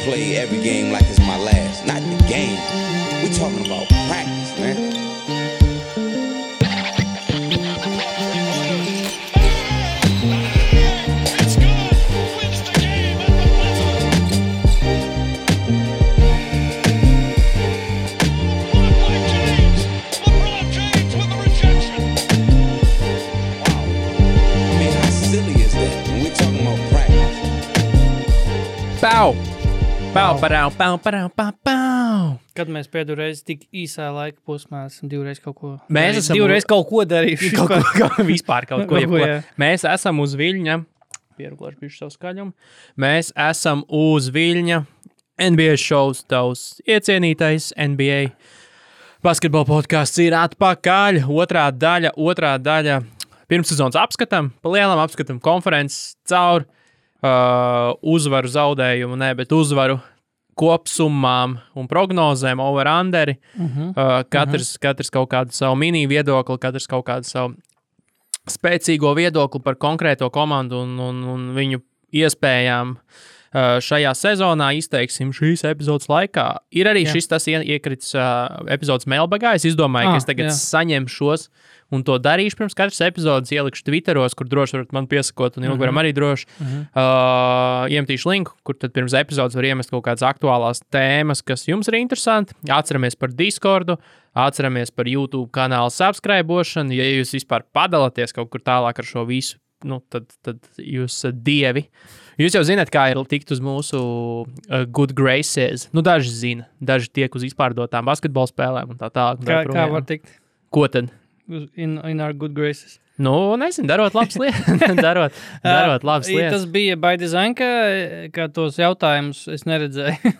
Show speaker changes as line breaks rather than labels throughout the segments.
play every game like it's my last. Not the game. We're talking about practice, man.
Pau.
Kad mēs pēdējo reizi tik īsā laika posmā esam divreiz kaut ko
darījuši. Vispār kaut ko.
Jā.
Mēs esam uz Viļņa. Pieruglāšu bišķi savu skaļumu. Mēs esam uz Viļņa. NBA šovs, tavs iecienītais NBA basketbola podcasts ir atpakaļ. Otrā daļa. Pirmssezonas apskatam, pa lielam apskatam konferences caur. Uzvaru zaudējumu, bet uzvaru kopsummām un prognozēm, over-underi. Katrs kaut kādu savu mini viedokli, katrs kaut kādu savu spēcīgo viedokli par konkrēto komandu un viņu iespējām šajā sezonā izteiksim šīs epizodes laikā. Ir arī šis tas iekrits epizodes mailbagā. Es izdomāju, ka es tagad saņemšos un to darīšu pirms katras epizodes, ielikšu Twitteros, kur droši varat man piesakot, un ilgvaram arī droši. Iemetīšu linku, kur tad pirms epizodes var iemest kaut kādas aktuālās tēmas, kas jums ir interesanti. Atceramies par Discordu, atceramies par YouTube kanālu subscribošanu. Ja jūs vispār padalaties kaut kur tālāk ar šo visu, tad jūs dievi. Jūs jau zināt, kā ir tikt uz mūsu good graces. Daži zina, daži tiek uz izpārdotām basketbola spēlēm un tā tālāk.
Kā var tikt?
Ko tad?
In our good graces.
Nezinu, darot labas lietas. darot labas lietas.
Tas bija by design, ka tos jautājumus es neredzēju.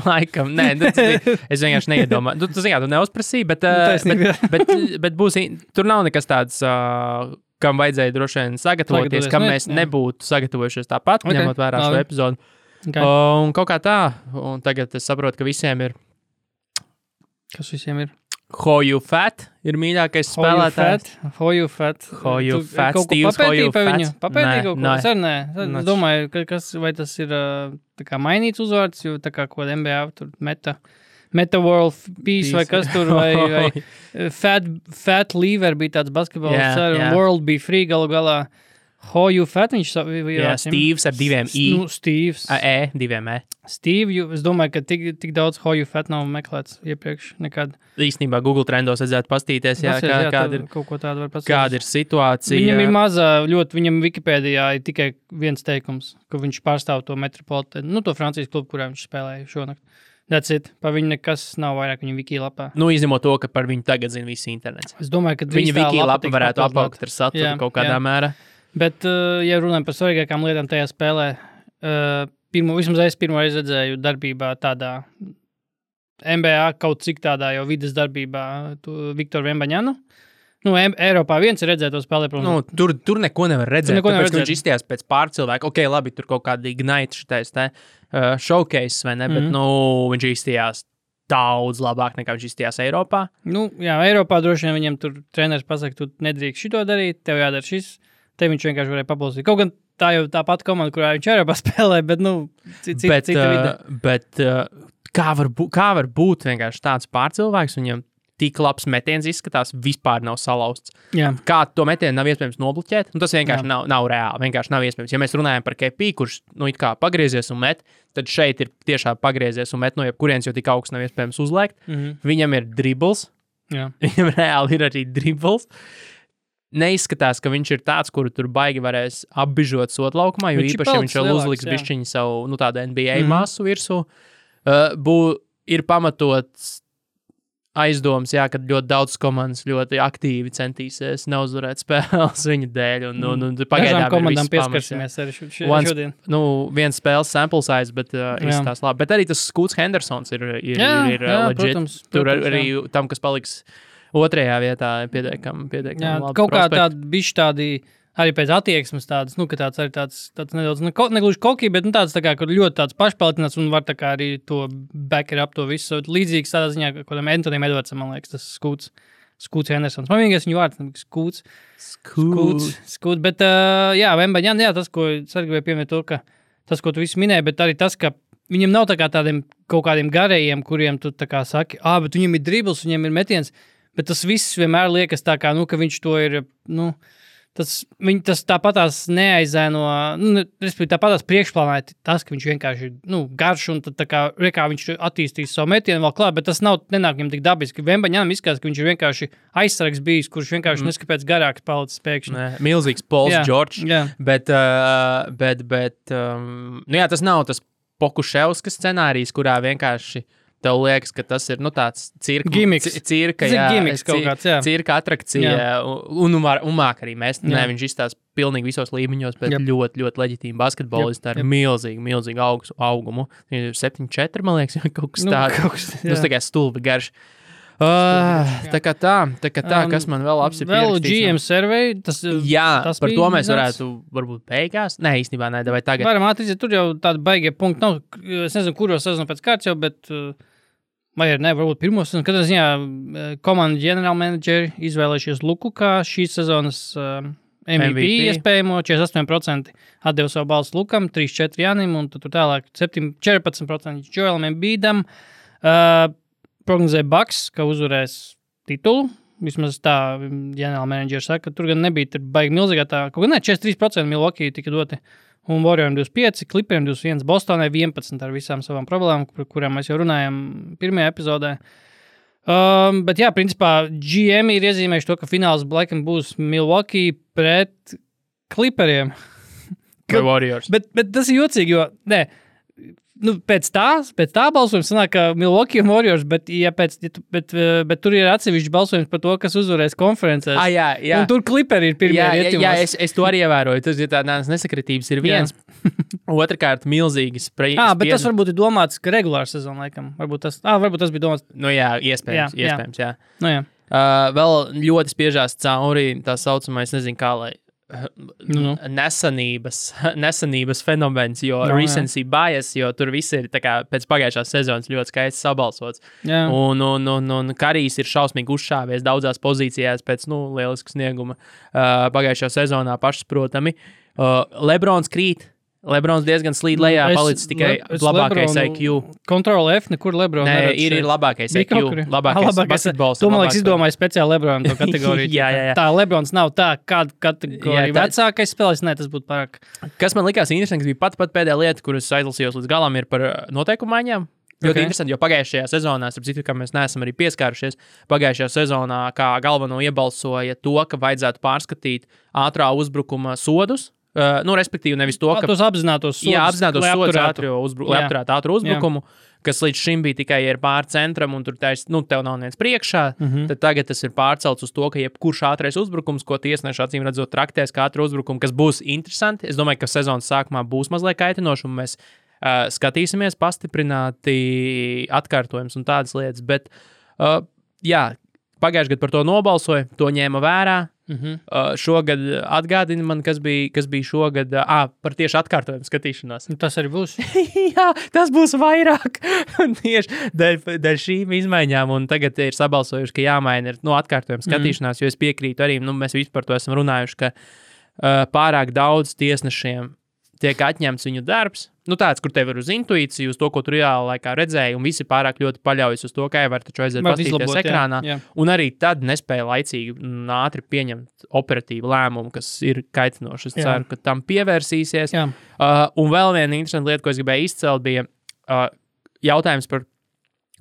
Laikam, nē, es vienkārši neiedomāju. Tu neuzprasīji, bet būs, tur nav nekas tāds, kam vajadzēja droši vien sagatavoties, kam mēs nebūtu sagatavojušies tāpat, ņemot vērā šo epizodu. Un kaut kā tā, un tagad es saprotu, ka visiem ir...
Kas visiem ir?
Hoju Fat ir mīļākais spēlētājs.
Hoju Fat.
Steve's Hoju Fat.
Papētīji kaut ko? Es domāju, vai tas ir tā kā mainīts uzvārds, jo tā kā ko NBA tur Meta World Peace vai kas tur, vai Fat Lever bija tāds basketbols, World be free galu galā. Hoju Fat, viņš
Steve's ar diviem I.
Steve's.
Diviem E.
Steve, es domāju, ka tik daudz Hoju Fat nav meklēts iepriekš nekad.
Īstenībā Google trendos vajadzētu pastīties, kāda ir,
kaut ko tādu var pastīties.
Kāda ir situācija.
Viņam ir mazā, viņam Wikipēdijā ir tikai viens teikums, ka viņš pārstāv to Metropolitanu, to Francijas klubu, kurā viņš spēlēja šonakt. That's it. Par viņu nekas nav vairāk viņa wiki lapā.
Izņemot to, ka par viņu tagad zina visi internets.
Es domāju, ka
viņa wiki lapa varētu apaugt ar saturu kaut kādā mērā.
Bet, ja runājam par svarīgākām lietām tajā spēlē, vismaz es pirmo reizi redzēju darbībā tādā NBA kaut cik tādā jau vides darbībā Viktoru Vembaņanu. Eiropā viens ir redzēt to spēlē, protams.
Tur neko nevar redzēt, tāpēc, ka viņš izstījās pēc pārcilvēku. Ok, labi, tur kaut kāda ignite šitais showcase, vai ne, bet viņš izstījās daudz labāk nekā viņš izstījās Eiropā.
Eiropā droši vien viņam tur treneris pasaka, tu nedrīkst šito darīt, tev jādara šis. Te viņš vienkārši varēja pabalstīt. Kaut gan tā jau tā pati komanda, kurā viņš Eiropā spēlē, bet, cita vide.
Bet kā var būt vienkārši tāds pārcilvēks, viņam tik labs metiens izskatās, vispār nav salauzts.
Jā.
Kā to metienu nav iespējams nobloķēt? Tas vienkārši nav reāli, vienkārši nav iespējams. Ja mēs runājam par KP, kurš, it kā pagriezies un met, tad šeit ir tiešām pagriezies un met no jebkurienes, jo tik augsts nav iespējams uzliekt. Viņam ir dribbles.
Jā.
Viņam reāli ir arī dribbles. Neizskatās, ka viņš ir tāds, kuru tur baigi varēs apbižot sotlaukumā, jo īpaši, ja viņš vēl uzliks bišķiņu savu tādu NBA masu virsū. Ir pamatots aizdoms, kad ļoti daudz komandas ļoti aktīvi centīsies neuzvarēt spēles viņa dēļ.
Dažām komandām pieskarsimies arī šodien.
Viens spēles sample size, bet izskatās labi. Bet arī tas Scoots Hendersons ir legit.
Protams,
tur arī tam, kas paliks otrajā vietā pietiekami labi.
Kaut kā tādi bišķi tādi, arī pēc attieksmes tādas, ka tāds arī tāds nedaudz, negluži koki, bet tāds tā kā, kur ļoti tāds pašpalietināts un var tā kā arī to backer up to visu. Līdzīgs tādā ziņā, kodam Antonijam Edwardsam, man liekas, tas Scoots Hendersons. Man vienīgais viņu vārds, Scoots. Bet, Vembaņan, tas, ko es arī gribēju pieminēt to, ka tas, ko tu visu minēji, bet arī tas, ka viņam nav tā kā tādiem kaut kādiem garējiem, kuriem tu tā kā saki, bet viņam ir dribbles, viņam ir metiens, bet tas viss vienmēr liekas tā kā, ka viņš to ir, tas tāpatās neaizēno, respektīvi tāpatās priekšplānā tas, ka viņš vienkārši ir, garš un tad tā kā viņš attīstīs savu metienu vēl klāt, bet tas nenāk viņam tik dabiski. Vembaņām izskatās, ka viņš ir vienkārši aizsargs bijis, kurš vienkārši neskapēc garāks palicis pēkšņi.
Milzīgs Pauls George, bet tas nav tas Pokuševska scenārijs, kurā vienkārši tev liekas, ka tas ir tāds cirka atrakcija, un māk arī mēs. Nē, viņš izstās pilnīgi visos līmeņos, bet ļoti, ļoti leģitīmi basketbolisti ar milzīgu augumu. 7-4, man liekas, kaut kas tāds. Tas tikai stulbi garš. Tā kā tā, kas man vēl
Vēl GM survey, tas
par to mēs varētu varbūt beigās. Nē, īstenībā nē, vai tagad.
Varam atrīt, tur jau tādi baigie punkti nav. Es nezinu, kuros sezonu pēc kārts jau, bet vai arī ne, varbūt pirmo sezonu. Katrā ziņā komandu ģenerālmenedžeri izvēlējušies Luku kā šīs sezonas MVP iespējamo, 48% atdeva savu balsu Lukam, 3-4 Janim, un tur tālāk 14% Joelam Embiidam. Prognozē Bucks, ka uzvarēs titulu. Vismaz tā ģenerālmenedžeri saka, ka tur gan nebija baigi milzīgā tā. Kaut gan 43% Milwaukee tika doti. Un Warrioriem 25, Clipperiem 21, Bostonai 11 ar visām savām problēmām, par kurām mēs jau runājam pirmajā epizodē. Bet jā, principā GM ir iezīmējuši to, ka fināls laikam būs Milwaukee pret Clipperiem.
Vai Warriors.
Bet tas ir jocīgi, jo pēc tā balsojums sanāk, ka Milwaukee un Warriors, bet tur ir atsevišķi balsojums par to, kas uzvarēs konferencēs.
Jā.
Un tur Clipperi ir pirmie rietumos.
Jā, es to arī ievēroju. Tas ir tādas nesakritības ir viens. Otrakārt, milzīgas spriedzes.
Bet tas varbūt ir domāts, ka regulāra sezona laikam. Varbūt tas bija domāts.
Iespējams, jā.
Jā.
Vēl ļoti spiežās cauri tā saucamais, nezinu kā, lai nesanības fenomens, jo recency bias, jo tur viss ir tā kā pēc pagājušās sezonas ļoti skaisti sabalsots. Un Karijs ir šausmīgi uzšāvies daudzās pozīcijās pēc, lielisku snieguma pagājušajā sezonā pašsaprotami. Lebrons krīt. Lebrons diezgan slīd lejā, palicis tikai labākais IQ.
Control F, nekur Lebrons
neredz. Nē, ir labākais IQ, labākais basketbols.
To, man liekas, izdomāju speciāli Lebronam to kategoriju.
jā.
Tā Lebrons nav tā, kāda kategorija vecākais spēlēs, tas būtu pārāk.
Kas man likās interesanti, bija pat pēdējā lieta, kuras aizlasījos līdz galam, ir par noteikumu maiņām. Ļoti interesanti, jo pagājušajā sezonā, starp citu, ka mēs neesam arī pieskārušies, pagājušajā sezonā kā galveno iebalsoja to, ka vajadzētu pārskatīt ātrā uzbrukuma sodus. Respektīvi, nevis to, ka
tos apzinātos sodus,
lai apturētu ātru uzbrukumu, kas līdz šim bija tikai ir pār centram, un tur tev nav neviens priekšā. Tad tagad tas ir pārcelts uz to, ka jebkurš ātrais uzbrukums, ko tiesneši acīm redzot traktēs kā ātru uzbrukumu, kas būs interesanti. Es domāju, ka sezonas sākumā būs mazliet kaitinoši, un mēs skatīsimies pastiprināti atkārtojums un tādas lietas. Bet, pagājušajā gadā par to nobalsoja, to ņēma vērā. Šogad atgādina man, kas bija šogad par tieši atkārtojumu skatīšanos.
Tas arī būs.
Jā, tas būs vairāk. Tieši dēļ šīm izmaiņām, un tagad ir sabalsojuši, ka jāmaina ir atkārtojumu skatīšanās, jo es piekrītu arī, mēs visi par to esam runājuši, ka pārāk daudz tiesnešiem tiek atņemts viņu darbs. Tāds, kur tev ir uz intuīciju, uz to, ko tu reāli laikā redzēji, un visi pārāk ļoti paļaujas uz to, ka var taču aiziet pastīties ekrānā. Jā. Un arī tad nespēja laicīgi un ātri pieņemt operatīvu lēmumu, kas ir kaitinoši. Es ceru, ka tam pievērsīsies. Un vēl viena interesanta lieta, ko es gribēju izcelt, bija jautājums par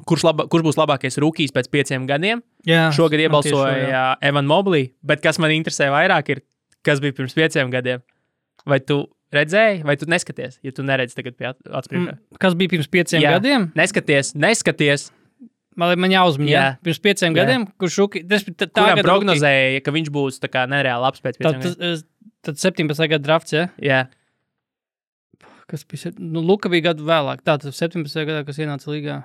kurš būs labākais rūkijs pēc 5 gadiem.
Jā,
šogad iebalsoja Evan Mobley, bet kas man interesē vairāk ir, kas bija pirms 5 gadiem. Vai tu redzēji, vai tu neskaties, ja tu neredzi tagad pie atspriekšā?
Kas bija pirms 5 gadiem?
Neskaties.
Man jāuzmina, pirms 5 gadiem, kurš
kuram prognozēja, ka viņš būs tā kā nereāli labs pēc 5 gadiem.
Tad 17. gada drafts, ja?
Jā.
Kas bija? Luka bija gadu vēlāk. Tātad 17. gadā, kas ienāca līgā.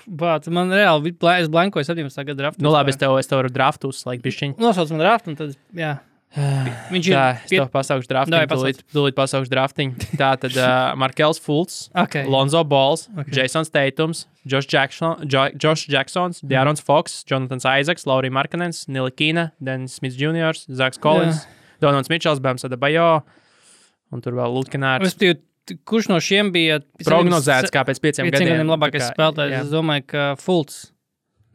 Man reāli es blankoju 17. gada draftu.
Labi, es tev varu draftu uzslēgt bišķiņu.
Nosauc man draftu, un tad, jā. Viņš
Tā, es tev pasaukšu draftiņu, tūlīt pasaukšu draftiņu. Tātad Markels Fultz, Lonzo Balls, Jasons Tatums, Josh Jacksons, De'Aaron Fox, Jonathan Isaacs, Lauri Markkanens, Nilikina, Dennis Smith Jr., Zaks Collins, Donalds Mitchells, Bams Adebayo, un tur vēl Lutkenārs.
Kurš no šiem bija
prognozēts kā pēc 5 gadiem
labākais spēlētājs? Es domāju, ka Fultz,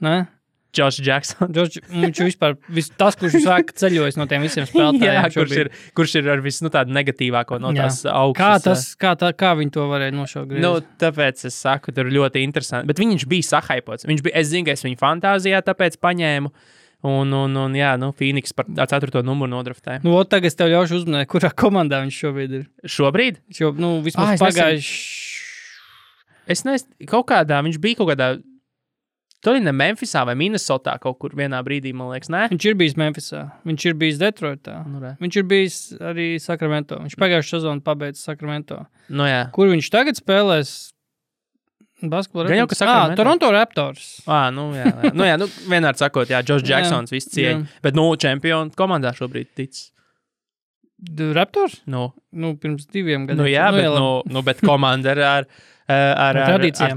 ne?
Josh Jackson.
Viņš vispār, tas, kurš visvairāk ceļojas no tiem visiem spēlētājiem.
kurš ir ar visu tādu negatīvāko no tās augstas.
Kā viņi to varēja nošaukt?
Tāpēc es saku, tur ļoti interesanti. Bet viņš bija sahaipots. Es zinu, ka es viņu fantāzijā tāpēc paņēmu. Un Phoenix par 4. numuru nodraftēja.
Tagad es tev ļaušu uzmanēt, kurā komandā viņš šobrīd ir.
Šobrīd?
Vismaz pagājuši.
Es nezinu, viņš bija kaut kādā tur ir ne Memphisā vai Minnesotā kaut kur vienā brīdī, man liekas, ne?
Viņš ir bijis Memphisā, viņš ir bijis Detroitā, viņš ir bijis arī Sacramento. Viņš pagājušā sezonu pabeidza Sacramento. Kur viņš tagad spēlēs? Basketbolu Raptors. Toronto Raptors.
Vienmēr sakot, Josh Jacksons viss cieņa. Bet, čempionu komandā šobrīd tic.
Raptors? Pirms 2 gadiem.
Bet komanda ar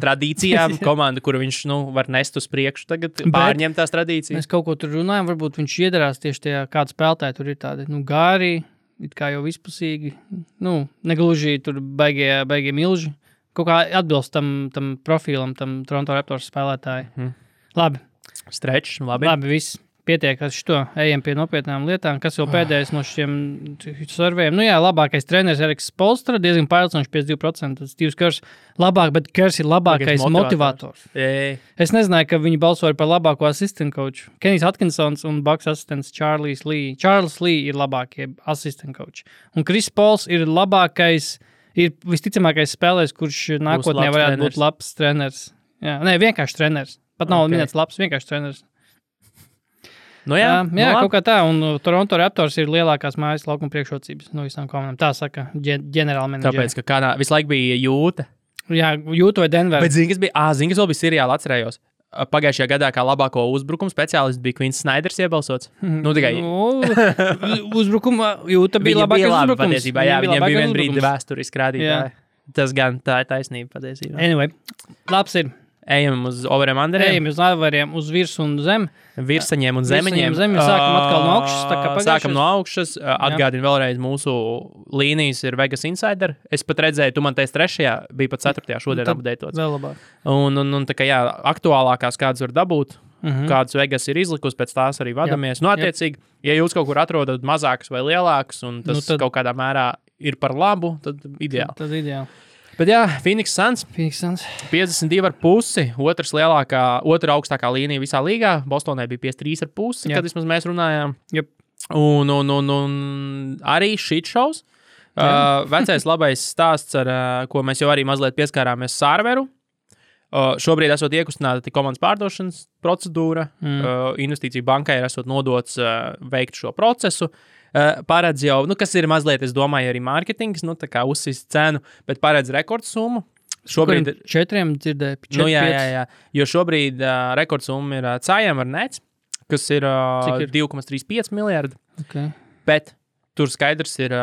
tradīcijām, komanda, kuru viņš var nest uz priekšu, tagad pārņem tās tradīcijas.
Mēs kaut ko tur runājam, varbūt viņš iedarās tieši tajā, kāda spēlētāja tur ir tādi, gāri, it kā jau vispusīgi, negluži tur baigie milži, kaut kā atbilst tam profilam, tam Toronto Raptors spēlētāji. Labi.
Strečs, labi.
Labi, viss. Pietiek ar šito, ejam pie nopietnām lietām. Kas vēl pēdējais no šiem survejiem? Labākais treneris Eriks Spoelstra, diezgan pārliecinoši 52%. Steve's Kerrs labāk, bet Kerrs ir labākais motivators. Es nezināju, ka viņi balsoja par labāko assistant coachu. Kenijs Atkinsons un Bucks asistents Charles Lee ir labākie assistant coachi. Un Chris Pauls ir labākais, ir visticamākais spēlējs, kurš nākotnē varētu būt labs treneris. Vienkārši treneris. Pat nav minēts labs, vienkārši treneris. Kaut kā tā, un Toronto Raptors ir lielākās mājas laukuma priekšrocības no visām komandām. Tā saka ģenerālmenedžeri.
Tāpēc, ka visu laiku bija Jūta.
Jūta vai Denver.
Bet zini, kas vēl bija seriāli, atcerējos. Pagājušajā gadā kā labāko uzbrukumu speciālists bija Quins Snyders iebalsots. Tikai
uzbrukuma Jūta bija labākais uzbrukums.
Patiesībā, viņiem bija vien brīdi vēsturiski rādītāji. Tas gan tā ir taisnība patiesībā.
Anyway, labs ir.
Ejam uz overiem underiem.
Ejam uz overiem, uz virsu un zem.
Virsaņiem un zemeņiem.
Sākam atkal no augšas.
Sākam no augšas. Atgādinu vēlreiz, mūsu līnijas ir Vegas Insider. Es pat redzēju, tu man teici 3. bija pat 4. šodien updatētots.
Vēl labāk.
Un tā kā aktuālākās kādas var dabūt, kādas Vegas ir izlikusi, pēc tās arī vadamies. Attiecīgi, ja jūs kaut kur atrodat mazākas vai lielākas, un tas kaut kādā mērā ir par labu, tad ideāli.
Tad ideāli.
Bet Phoenix Suns 52,5, otra augstākā līnija visā līgā. Bostonai bija 53,5, kad vismaz mēs runājām.
Yep.
Un arī shit shows. Vecais labais stāsts, ar ko mēs jau arī mazliet pieskārāmies Sārveru. Šobrīd esot iekustināta komandas pārdošanas procedūra. Investīciju bankai ir esot nodots veikt šo procesu. Paredz jau, kas ir mazliet, es domāju, arī mārketings, tā kā uzsist cenu, bet paredz rekordsummu.
Šobrīd 4 dzirdēja, 4,
jā. Jo šobrīd rekordsumma ir Cājam ar Nets, kas ir 2,35 miljardi.
Okay.
Bet tur skaidrs ir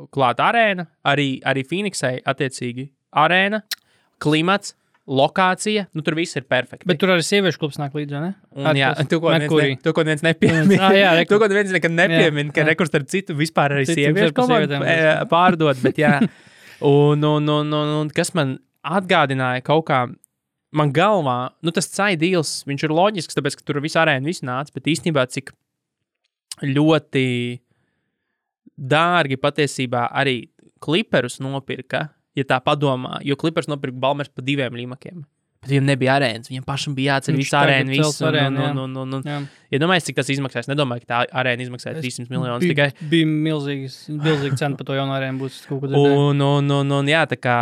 klāta arēna, arī Phoenixai attiecīgi arēna, klimats, lokācija, tur viss ir perfekti.
Bet tur arī sieviešu klubs nāk līdzi, ne?
Tu ko neviens nepiemin. Tu ko neviens nekad nepiemin, ka rekurs ar citu vispār arī sieviešu komandu pārdod, bet jā. Un kas man atgādināja kaut kā, man galvā, tas Cai deals, viņš ir loģisks, tāpēc, ka tur viss arēna viss nāca, bet īstenībā cik ļoti dārgi patiesībā arī Clipperus nopirka, ja tā padomā, jo Clippers nopirka Balmers pa 2 līmakiem. Bet viņam nebija arēnas, viņam pašam bija jāceļ visu arēnu, visu. Ja domājies, cik tas izmaksās, nedomāju, ka tā arēna izmaksāja 300 miljonus tikai.
Bija milzīga cena par to jaunu arēnu būs kaut ko
Un jā, tā kā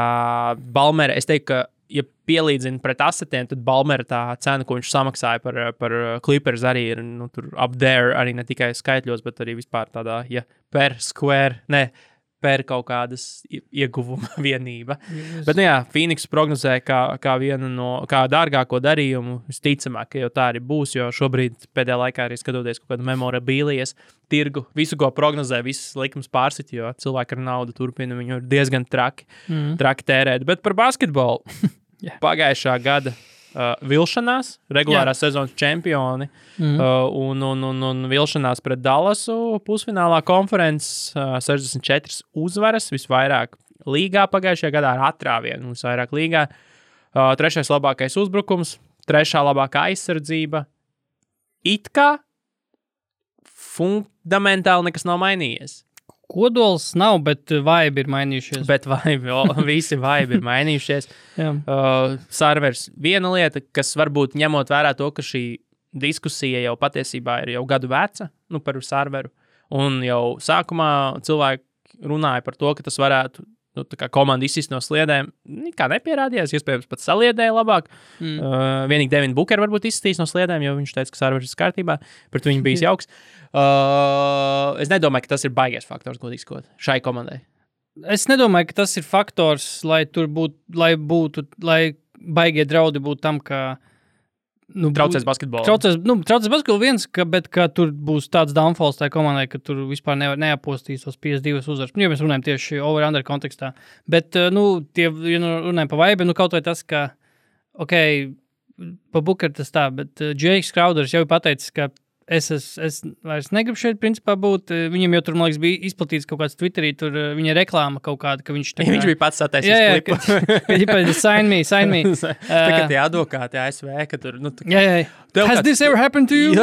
Balmera, es teiktu, ka, ja pielīdzina pret asetiem, tad Balmera tā cena, ko viņš samaksāja par Clippers arī ir, tur up there, arī ne tikai skaitļos, bet arī vispār tādā, per per kaut kādas ieguvuma vienība. Bet, nu jā, Phoenix prognozē kā vienu no, kā dārgāko darījumu, visticamāk, ka jau tā arī būs, jo šobrīd pēdējā laikā arī skatoties kaut kādu memorabilijas tirgu, visu, ko prognozē, visas likums pārsit, jo cilvēki ar naudu turpina, viņu ir diezgan traki tērēt. Bet par basketbolu pagājušā gada vilšanās, regulārās sezonas čempioni un vilšanās pret Dallasu pusfinālā konferences 64 uzvaras, visvairāk līgā pagājušajā gadā ar atrāvienu, visvairāk līgā. Trešais labākais uzbrukums, trešā labākā aizsardzība. It kā fundamentāli nekas nav mainījies.
Kodols nav, bet vibe ir mainījušies.
Bet visi vibe ir mainījušies. Servers viena lieta, kas varbūt ņemot vērā to, ka šī diskusija jau patiesībā ir jau gadu veca, par serveru. Un jau sākumā cilvēki runāja par to, ka tas varētu tā kā komanda izsist no sliedēm. Kā nepierādījās, iespējams pat saliedēja labāk. Vienīgi Devin Booker varbūt izsistīs no sliedēm, jo viņš teica, ka serveris ir kārtībā. Pret viņu bijis jauks. Es nedomāju, ka tas ir baigais faktors, godīgi sakot, šai komandai.
Es nedomāju, ka tas ir faktors, lai baigie draudi būtu tam, ka
traucēs basketbolu.
Traucēs basketbolu viens, bet ka tur būs tāds downfalls tai komandai, ka tur vispār neapostīs tos 52 uzvaras. Ja mēs runājam tieši over-under kontekstā. Bet, runājam pa vibe, kaut vai tas, ka, pa Booker tas tā, bet Jakes Crowders jau ir pateicis, ka es vairs negribu šeit, principā, būt. Viņam jau tur, man liekas, bija izplatīts kaut kāds Twitterī, tur viņa reklāma kaut kāda, ka viņš...
Viņš bija pats sataisījis klipu.
Ka sign me.
Tagad tie advokāti ASV, ka tur...
Has this ever happened to you?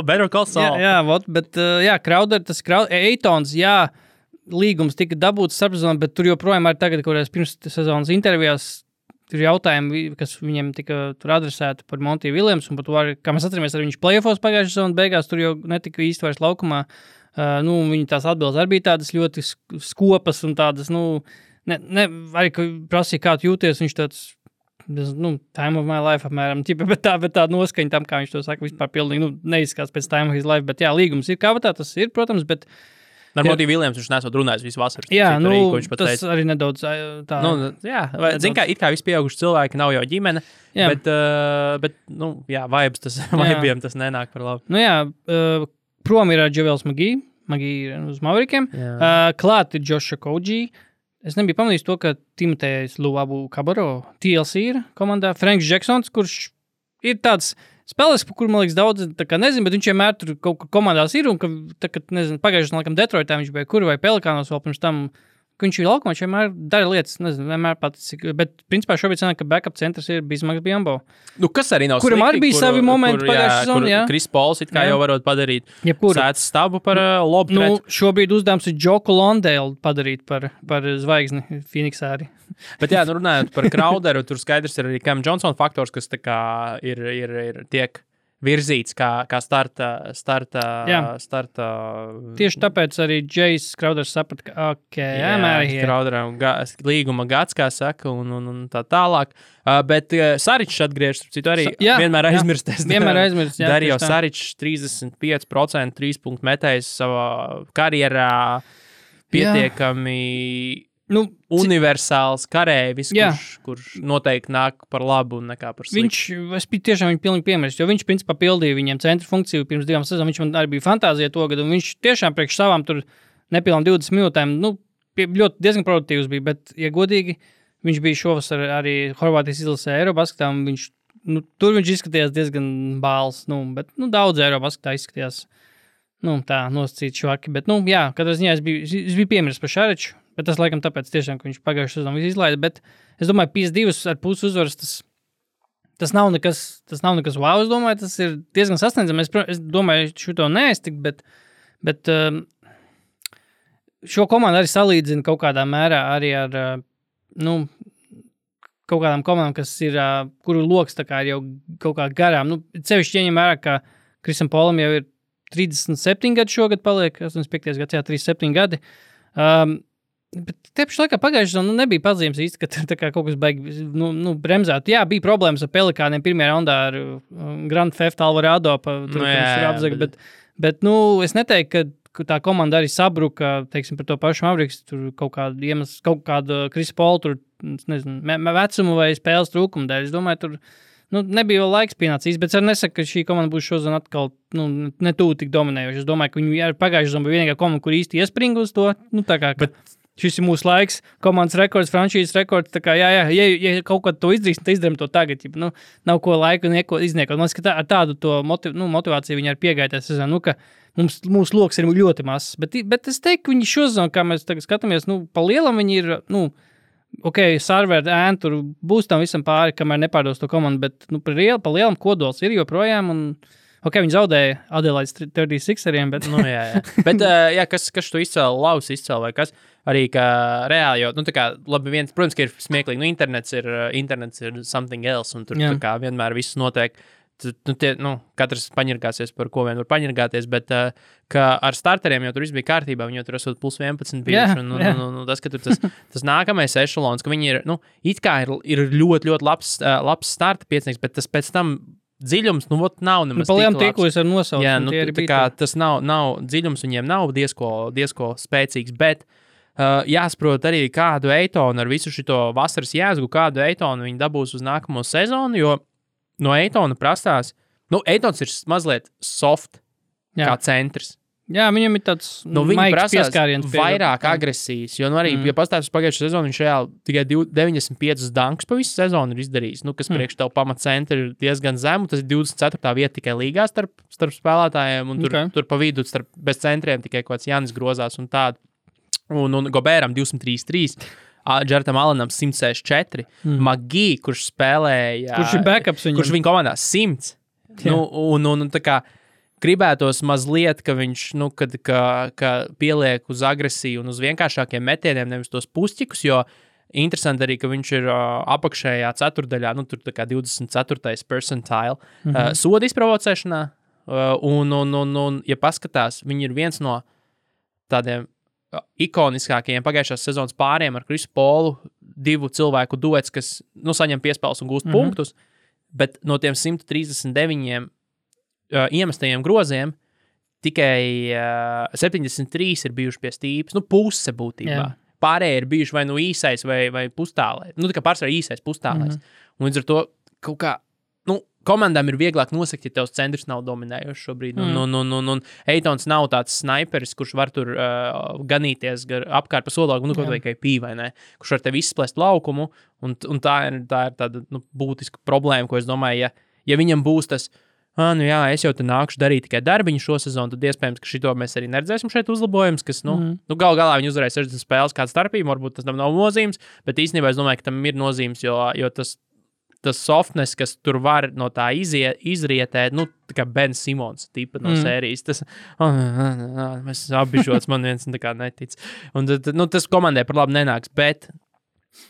Better call Saul.
Bet Crowder, Eitons, līgums tika dabūts starpsezonā, bet tur joprojām arī tagad, kurās pirms sezonas intervijās tur jautājumi, kas viņiem tika tur adresēti par Monty Williams, un par to, kā mēs atceramies, arī viņš playoffos pagājušajā sezonas beigās, tur jau netika īsti vairs laukumā. Viņa tās atbildes arī bija tādas ļoti skopas un tādas, arī, ka prasīja, kā tu jūties, viņš tāds, time of my life apmēram, bet tā noskaņa tam, kā viņš to saka, vispār pilnīgi, neizskās pēc time of his life, bet līgums ir kā tā, tas ir, protams, bet
Ar Monty Williams viņš nesot runājis visu vasaru.
Tas teica. Arī nedaudz tā.
Zin kā, it kā visi pieauguši cilvēki nav jau ģimene, bet vibes tas, vibiem tas nenāk par labu.
Prom ir Javels Magee ir uz Maverikiem. Klāt ir Josh Okogie. Es nebiju pamanījis to, ka Timotejs Luabu Kabaro TLC ir komandā. Franks Jacksons, kurš ir tāds spēlēs, par kuru, man liekas, daudz nezinu, bet viņš vienmēr tur kaut kā komandās ir, un pagājušajā laikam Detroitā viņš bija kur vai Pelikānos vēl pirms tam, ka viņš ir laukumā, viņš vienmēr dara lietas, nezinu, vienmēr paticis, bet principā šobrīd sanāk, ka backup centrs ir Bismarcks Biyombo.
Kas arī nav slikti,
kuram arī bija savi momenti pagājušajā sezonā,
Chris Pauls it kā jau varot padarīt sēdz stabu par lobu pret.
Šobrīd uzdevums ir Joku Londale padarīt par zvaigzni Phoenixā arī.
Bet runājot par Crowderu, tur skaidrs ir arī Cam Johnson faktors, kas tā kā ir tiek virzīts kā starta.
Tieši tāpēc arī Jais Crowders saprata, ka
Crowderam līguma gads, kā saka, un tā tālāk. Bet Saričs atgriežas, citu arī vienmēr aizmirsties. Darīja Saričs 35% 3-punktu metējs savā karjerā pietiekami... universāls karēvis, kurš noteikti nāk par labu un nekā par sliktu.
Es biju tiešām viņu pilnīgi piemērs, jo viņš principā pildīja viņiem centra funkciju pirms 2 sezonām. Viņš man arī bija fantāzija to gadu, un viņš tiešām priekš savām tur nepilnām 20 minūtēm, ļoti diezgan produktīvs bija, bet, ja godīgi, viņš bija šovasar arī Horvātijas izlasē Eirobasketā, un tur viņš izskatījās diezgan bāls, bet daudz Eirobasketā izskatījās, tā nosacīt švaki, bet, katrā ziņā es biju piemērs par Šariču. Bet tas, laikam, tāpēc tiešām, ka viņš pagājušajā sezonā visu izlaida. Bet es domāju, 52,5 uzvaras, tas nav nekas wow, es domāju, tas ir diezgan sasniedzami. Es domāju, šito neaiztikt, bet šo komandu arī salīdzina kaut kādā mērā arī ar, kaut kādām komandām, kas ir, kuru loks tā kā ir jau kaut kā garām. Sevišķi ieņem vērā, ka Krisam Polam jau ir 37 gadi šogad paliek, 85. gads, 37 gadi. Bet tieši laikā pagājušajā sezonā nebija pazīmes īsti, ka tā kā kaut kas baigi bremzēt. Jā, bija problēmas ar Pelikāniem pirmajā raundā ar Grand Theft Alvarado, bet es neteiktu, tā komanda arī sabruka, teiksim, par to pašu Mavericks, tur kaut kāda Krisa Paula, tur, nezinu, vecumu vai spēles trūkumu dēļ. Es domāju, tur nebija vēl laiks pienācīs, bet es nesaku, ka šī komanda būs šodien atkal netūlīt tik dominējoša. Es domāju, ka viņi ir pagājuši zonu, vienīgā komanda, kur īsti iespringa uz to. Tā kā, bet šis ir mūsu laiks, komandas rekords, franšīzes rekords, tā kā, ja kaut ko to izdarīs, tad izdarām to tagad, nav ko laiku neko izniekot. Man liekas, ka ar tādu to motivāciju viņi ir piegājušies, ka mūsu loks ir ļoti mazs, bet es teiktu, ka viņi šozonu, kā mēs tagad skatāmies, pa lielam viņi ir, serveri, ēni, tur būs tam visam pāri, kamēr nepārdos to komandu, bet, pa lielam kodols ir joprojām, un, viņi zaudēja Adelaides 36eriem, bet,
jā. Bet, kas tu izcēli, Laus izcēli vai kas? Arī, ka reāli, jo, labi, protams, ka ir smieklīgi, internets ir something else, un tur tā kā vienmēr viss notiek, katrs paņirgāsies, par ko vien var paņirgāties, bet, ka ar starteriem jau tur viss bija kārtībā, viņi jau tur esot plus 11 bijuši, un tas, ka tur tas nākamais ešalons, ka viņi ir, it kā ir ļoti, ļoti labs starta piecinieks, bet tas pēc tam dziļums, nav nemaz tik labs.
Tie, ko es ar nosaucu.
Jā, tā kā tas nav dziļums, viņiem nav diezko spēcīgs, bet jāsaprot arī, kādu Eitonu ar visu šito vasaras jēzgu, kādu Eitonu viņi dabūs uz nākamo sezonu, jo no Eitona prastās, Eitons ir mazliet soft, kā centrs.
Jā, viņam ir tāds maigs pieskāriens.
Vairāk agresijas, jo arī, ja pastāvis uz pagājušo sezonu, viņš reāli tikai 95 dankus pa visu sezonu ir izdarījis, kas priekš tev pamatcentri ir diezgan zemu, tas ir 24. vieta tikai līgā starp spēlētājiem, un tur pa vidu bez centriem tikai kaut kāds Janis grozās un tādu. Un Gobēram 233, Džertam Alanam 164, Magī, kurš spēlēja...
Kurš ir backups viņam?
Kurš viņa komandā 100. Un tā kā gribētos mazliet, ka viņš, ka pieliek uz agresiju un uz vienkāršākiem metieniem, nevis tos pušķikus, jo interesanti arī, ka viņš ir apakšējā ceturdaļā, tur tā kā 24. percentile soda izprovocēšanā, un ja paskatās, viņi ir viens no tādiem ikoniskākajiem pagājušās sezonas pāriem ar Krisu Polu, 2 cilvēku duets, kas saņem piespēles un gūst punktus, bet no tiem 139 iemestajiem groziem tikai 73 ir bijuši pie stīpas, puse būtībā. Jā. Pārējie ir bijuši vai īsais vai pustālais. Tā kā pārsvarā īsais pustālais. Un līdz ar to kaut kā, komandām ir vieglāk nosakt, ja tevs centrs nav dominējošs šobrīd. Un Eitons nav tāds sniperis, kurš var tur ganīties apkārt pa sodlaukumu, kaut vai KP, vai ne? Kurš var tev izsplest laukumu, un tā ir tāda būtiska problēma, ko es domāju, ja viņam būs tas, es jau te nākušu darīt tikai darbiņu šo sezonu, tad iespējams, ka šito mēs arī neredzēsim šeit uzlabojums, kas, galā viņi uzvarēja 60 spēles kādu starpību, varbūt tas tam nav nozīmes, bet īstenībā es domāju, ka tam ir nozīmes, jo tas softness, kas tur var no tā izrietēt, tā kā Ben Simons tipa no sērijas, tas, mēs apbižots, man viens tā kā netic. Un tas komandē par labu nenāks, bet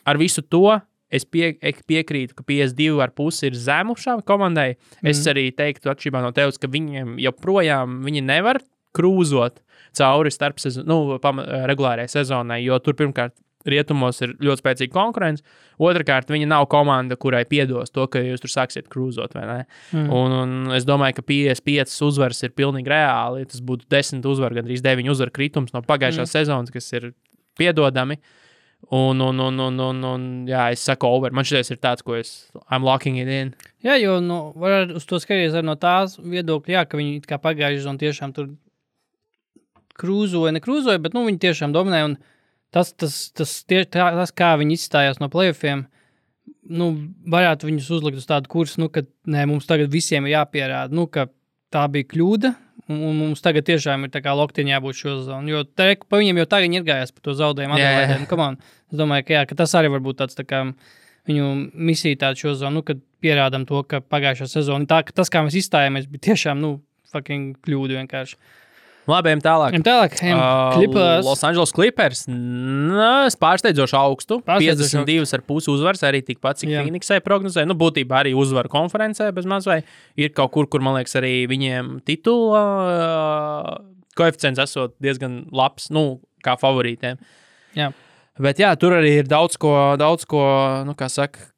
ar visu to es piekrītu, ka 52,5 ir zemu šā komandai. Es arī teiktu, atšķirībā no tevis, ka viņiem joprojām viņi nevar krūzot cauri starp regulārajai sezonai, jo tur pirmkārt rietumos ir ļoti spēcīga konkurence. Otrakārt, viņa nav komanda, kurai piedos to, ka jūs tur sāksiet krūzot, vai ne? Un es domāju, ka 55 uzvaras ir pilnīgi reāli. Tas būtu 10 uzvaru, gandrīz 9 uzvaru kritums no pagājušās sezonas, kas ir piedodami. Un jā, es saku over. Man šitais ir tāds, ko I'm locking it in.
Jā, jo var uz to skatīties arī no tās viedokļa, jā, ka viņi kā pagājuši un tiešām tur nekrūzoja, bet viņi tiešām dominēja un tas, kā viņi izstājās no playoffiem, varētu viņus uzlikt uz tādu kursu, ka mums tagad visiem ir jāpierāda, ka tā bija kļūda, un mums tagad tiešām ir tā kā loktiņā jābūt šo zonu, jo pa viņiem jau tagad ir gājās par to zaudējumu Adelaidēm. Es domāju, ka tas arī var būt tāds tā kā viņu misija tāda šo zonu, kad pierādam to, ka pagājušā sezona, tas, kā mēs izstājāmies, bija tiešām, fucking kļūda vienkārši.
Labi, ejam tālāk.
Clippers.
Los Angeles Clippers. Pārsteidzoši augstu. 52,5 uzvaras, arī tikpat, cik Phoenixai prognozēja. Būtībā arī uzvaru konferencē bez maz vai ir kaut kur, man liekas, arī viņiem titula koeficients esot diezgan labs, kā favorītiem.
Jā.
Bet jā, tur arī ir daudz ko, kā saka,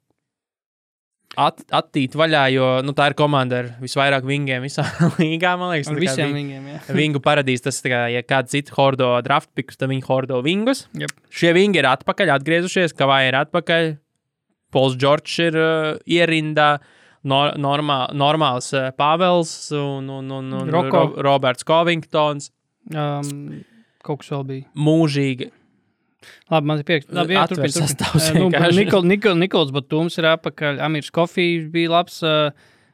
attīt vaļā, jo tā ir komanda ar visvairāk vingiem visā līgā, man liekas.
Ar visiem vingiem, jā.
Vingu paradīs, tas tā kā, ja kāds cits hordo draft pickus, tad viņi hordo vingus.
Yep.
Šie vingi ir atpakaļ, atgriezušies, Kavai ir atpakaļ, Pols Džordžs ir ierindā, normāls Pāvels un Roberts Covingtons.
Kaut kas vēl bija.
Mūžīgi.
Labi, man ir prieks. Labi, jā, turpin. Nikols Batums ir apakaļ, Amirs Kofijs bija labs,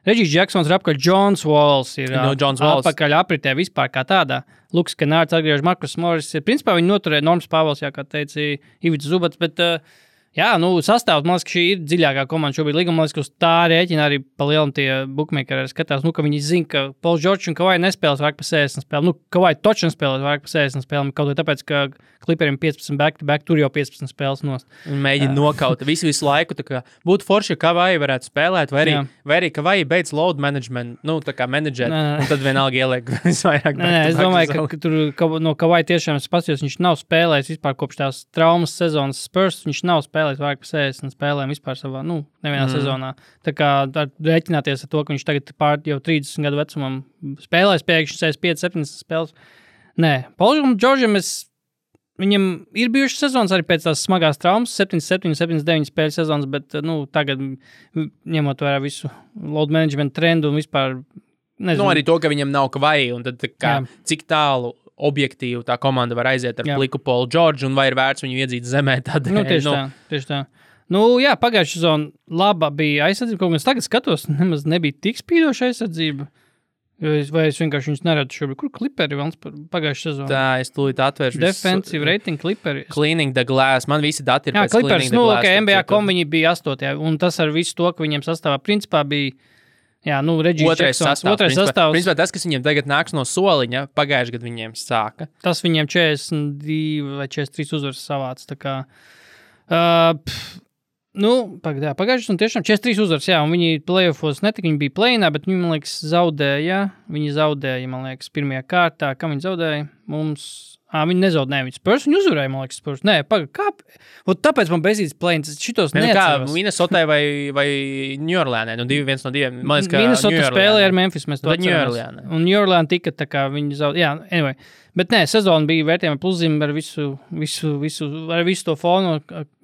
Regijs Jacksons ir apakaļ, Johns Walls ir apakaļ apritē vispār kā tādā. Luks Kenārds atgriež, Markus Morris ir, principā viņi noturēja Norms Pāvels, jā, kā teica Ivits Zubats, bet jā, sastāvs, man liekas, ka šī ir dziļākā komanda šobrīd līguma, man liekas, ka uz tā rēķina arī palielam tie bookmakeri skatās, ka viņi zina, ka Pols Džordžs un Kavai nespēlēs vairāk pa 60 spēlēm, Kavai toči nespēlēs vairāk pa 60 spēlēm, kaut vai tāpēc, ka Clipperiem 15 back-to-back, tur jau 15 spēles nost.
Mēģina nokaut visu laiku, tā kā būtu forši, ja Kavai varētu spēlēt, vai arī Kavai beidz load management, tā kā menedžēt, un tad vienalga ieliek visvairāk.
Es domāju, ka tur no Kavai tiešām spasījos, viņš nav spēlējis vispār kopš tās traumas sezonas Spurs, viņš nav spēlējis vairāk pa 60 spēlēm vispār savā, nevienā sezonā. Tā kā rēķināties ar to, ka viņš tagad jau 30 gadu vecumam spēlēs pēkšņi 65-70 spēles. Nē, Polam Džordžam viņam ir bijušas sezonas arī pēc tās smagās traumas, 77-79 spēļu sezonas, bet, tagad, ņemot vērā visu load management trendu un vispār, nezinu.
Arī to, ka viņam nav Kavai, un tad cik tālu objektīvi tā komanda var aiziet ar pliku Polu Džordžu, un vai ir vērts viņu iedzīt zemē tādēļ.
Tieši tā. Pagājušā sezona laba bija aizsardzība, kaut kas tagad skatos, nemaz nebija tik spīdoša aizsardzība. Vai es vienkārši viņus neredzu šobrīd? Kur Clipperi vēl pagājušā sezonā?
Tā, es tūlīt atvēršu.
Defensive rating Clipperi.
Cleaning the glass. Man visi dati ir pēc
Clippers,
Cleaning the glass.
NBA.com viņi bija 8. Un tas ar visu to, ka viņiem sastāvā principā bija, Regijs Jacksons. Otrais sastāvs.
Principā tas, kas viņiem tagad nāks no soliņa, pagājuši gadu viņiem sāka.
Tas viņiem 42 vai 43 uzvaras savāc. Tā kā, pagājušas un tiešām 43 uzvaras, un viņi playoffos netika, viņi bija play-inā, bet viņi, man liekas, zaudēja, man liekas, pirmajā kārtā, kam viņi zaudēja, viņi nezaudēja, viņi Spurs, viņi uzvarēja, man liekas, Spurs, tāpēc man bezīts play-ins, šitos neatceros.
Kā, Minnesotai vai New Orleanai, viens no diviem, man liekas, ka
Minnesota spēlēja ar Memphis, mēs to
atceramies.
Un New Orleans tika, tā kā viņi zaudēja, anyway. Bet nē, sezona bija vērtējama pluszīme ar visu to fonu,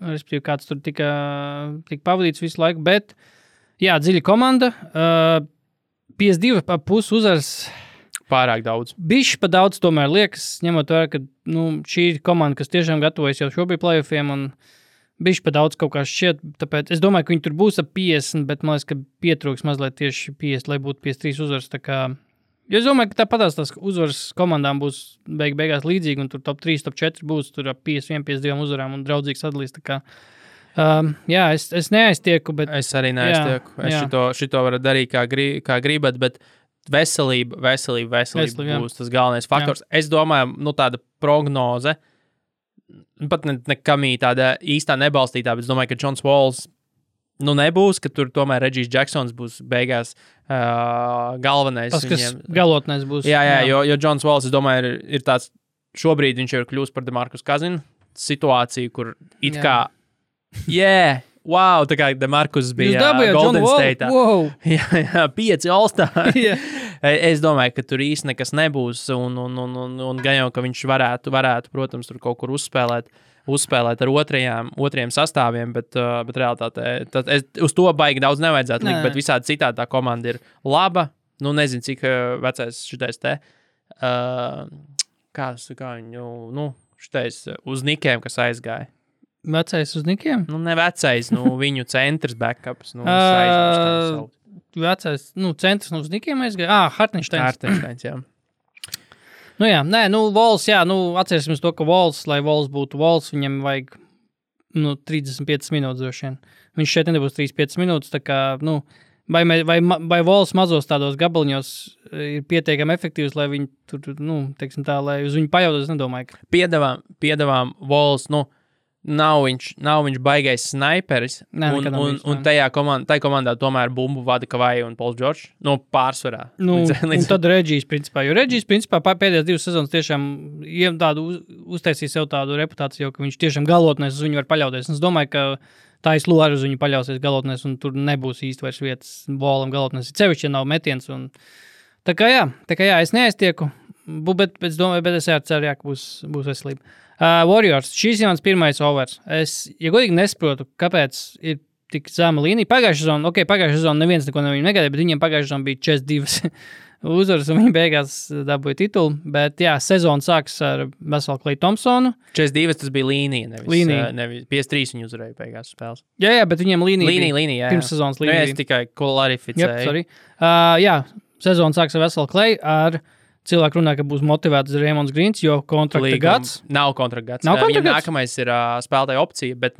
respektīvi kāds tur tika pavadīts visu laiku, bet, dziļa komanda, 52,5 uzvaras.
Pārāk daudz.
Bišķi pa daudz tomēr liekas, ņemot vērā, ka šī ir komanda, kas tiešām gatavojas jau šobrīd playoffiem, un bišķi pa daudz kaut kā šķiet, tāpēc es domāju, ka viņi tur būs ap 50, bet man liekas, ka pietrūks mazliet tieši 50, lai būtu 53 uzvaras, tā kā. Jo es domāju, ka tāpatās tās uzvaras komandām būs beigās līdzīgi, un tur top 3, top 4 būs tur ap 51, 52 uzvarām un draudzīgi sadalīs. Tā kā, es neaiztieku, bet.
Es arī neaiztieku. Šito varu darīt kā gribat, bet veselība būs tas galvenais faktors. Jā. Es domāju, tāda prognoze, pat nekamī tāda īstā nebalstītā, bet es domāju, ka Johns Walls nebūs, ka tur tomēr Regijs Jacksons būs beigās galvenais.
Tas, kas galotnais būs.
Jā, jo Johns Walls, es domāju, ir tāds, šobrīd viņš jau ir kļūst par DeMarcus Cousins situāciju, kur it kā, wow, tā kā DeMarcus bija Golden State'ā.
Wow.
Jā, 5 All-Star. Es domāju, ka tur īsti nekas nebūs, un gan jau, ka viņš varētu, protams, tur kaut kur uzspēlēt ar otrajiem sastāviem, bet realitātē uz to baigi daudz nevajadzētu likt, bet visādi citādi tā komanda ir laba. Nezinu, cik vecais šitais te. Kā viņu, šitais uz Nikiem, kas aizgāja.
Vecais uz Nikiem?
Ne vecais, viņu centrs backups.
Vecais, centrs uz Nikiem aizgāja?
Hartensteins, jā.
Walls, atcerēsimies to, ka Walls, lai Walls būtu Walls, viņam vajag 35 minūtes droši vien. Viņš šeit nebūs 35 minūtes, tā kā, vai Walls mazos tādos gabaliņos ir pietiekami efektīvs, lai viņi tur, teiksim tā, lai uz viņu pajautāt, es nedomāju.
Piedavām Walls, nav viņš baigais snaiperis, un tajā komandā tomēr bumbu vada Kavai un Pols Džordžs, pārsvarā.
Un tad Regijs, principā, jo Regijs, principā, pēdējās 2 sezonas tiešām uztaisīja sev tādu reputāciju, ka viņš tiešām galotnēs uz viņu var paļauties. Es domāju, ka Tais Lū arī uz viņu paļausies galotnēs, un tur nebūs īsti vairs vietas bolam galotnēs. Cevišķi, ja nav metiens. Un... Tā kā jā, es neaiztieku, bet es domāju, bet es ceru, ka būs veselība. Warriors, šīs ir mans pirmais overs. Es, ja godīgi nesaprotu, kāpēc ir tik zema līnija. Pagājušā sezona neviens neko no viņiem negaidīja, bet viņiem pagājušā sezona bija 42 uzvaras, un viņi beigās dabūja titulu. Bet jā, sezona sāks ar veselu Klay Thompsonu.
42 tas bija līnija, nevis 53 viņi uzvarēja beigās spēles.
Jā, bet viņiem līnija
jā.
Pirms sezonas līnija.
Es tikai klarificēju.
Jā, sezona sāks ar veselu Klay ar... Cilvēki runā, ka būs motivēts Raimonds Greens, jo kontrakta gads.
Nav kontrakta gads. Viņam nākamais ir spēlētāja opcija, bet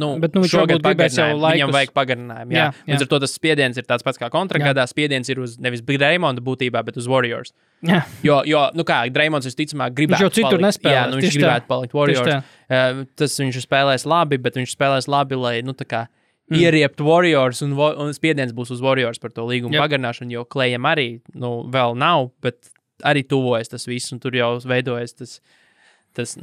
šogad viņam vajag pagarinājumu. Jā. Līdz ar to tas spiediens ir tāds pats kā kontrakta gadā. Spiediens ir uz nevis Raimonda būtībā, bet uz Warriors.
Jā.
Jo Raimonds visticamāk gribētu
viņš jau citur nespēlē.
Viņš gribētu palikt Warriors. Tas viņš spēlēs labi, bet viņš spēlēs labi, lai, ieriept Warriors un spiediens būs uz Warriors par to līgumu pagarināšanu, jo Klayam arī, vēl nav, bet arī tuvojas tas viss, un tur jau veidojas tas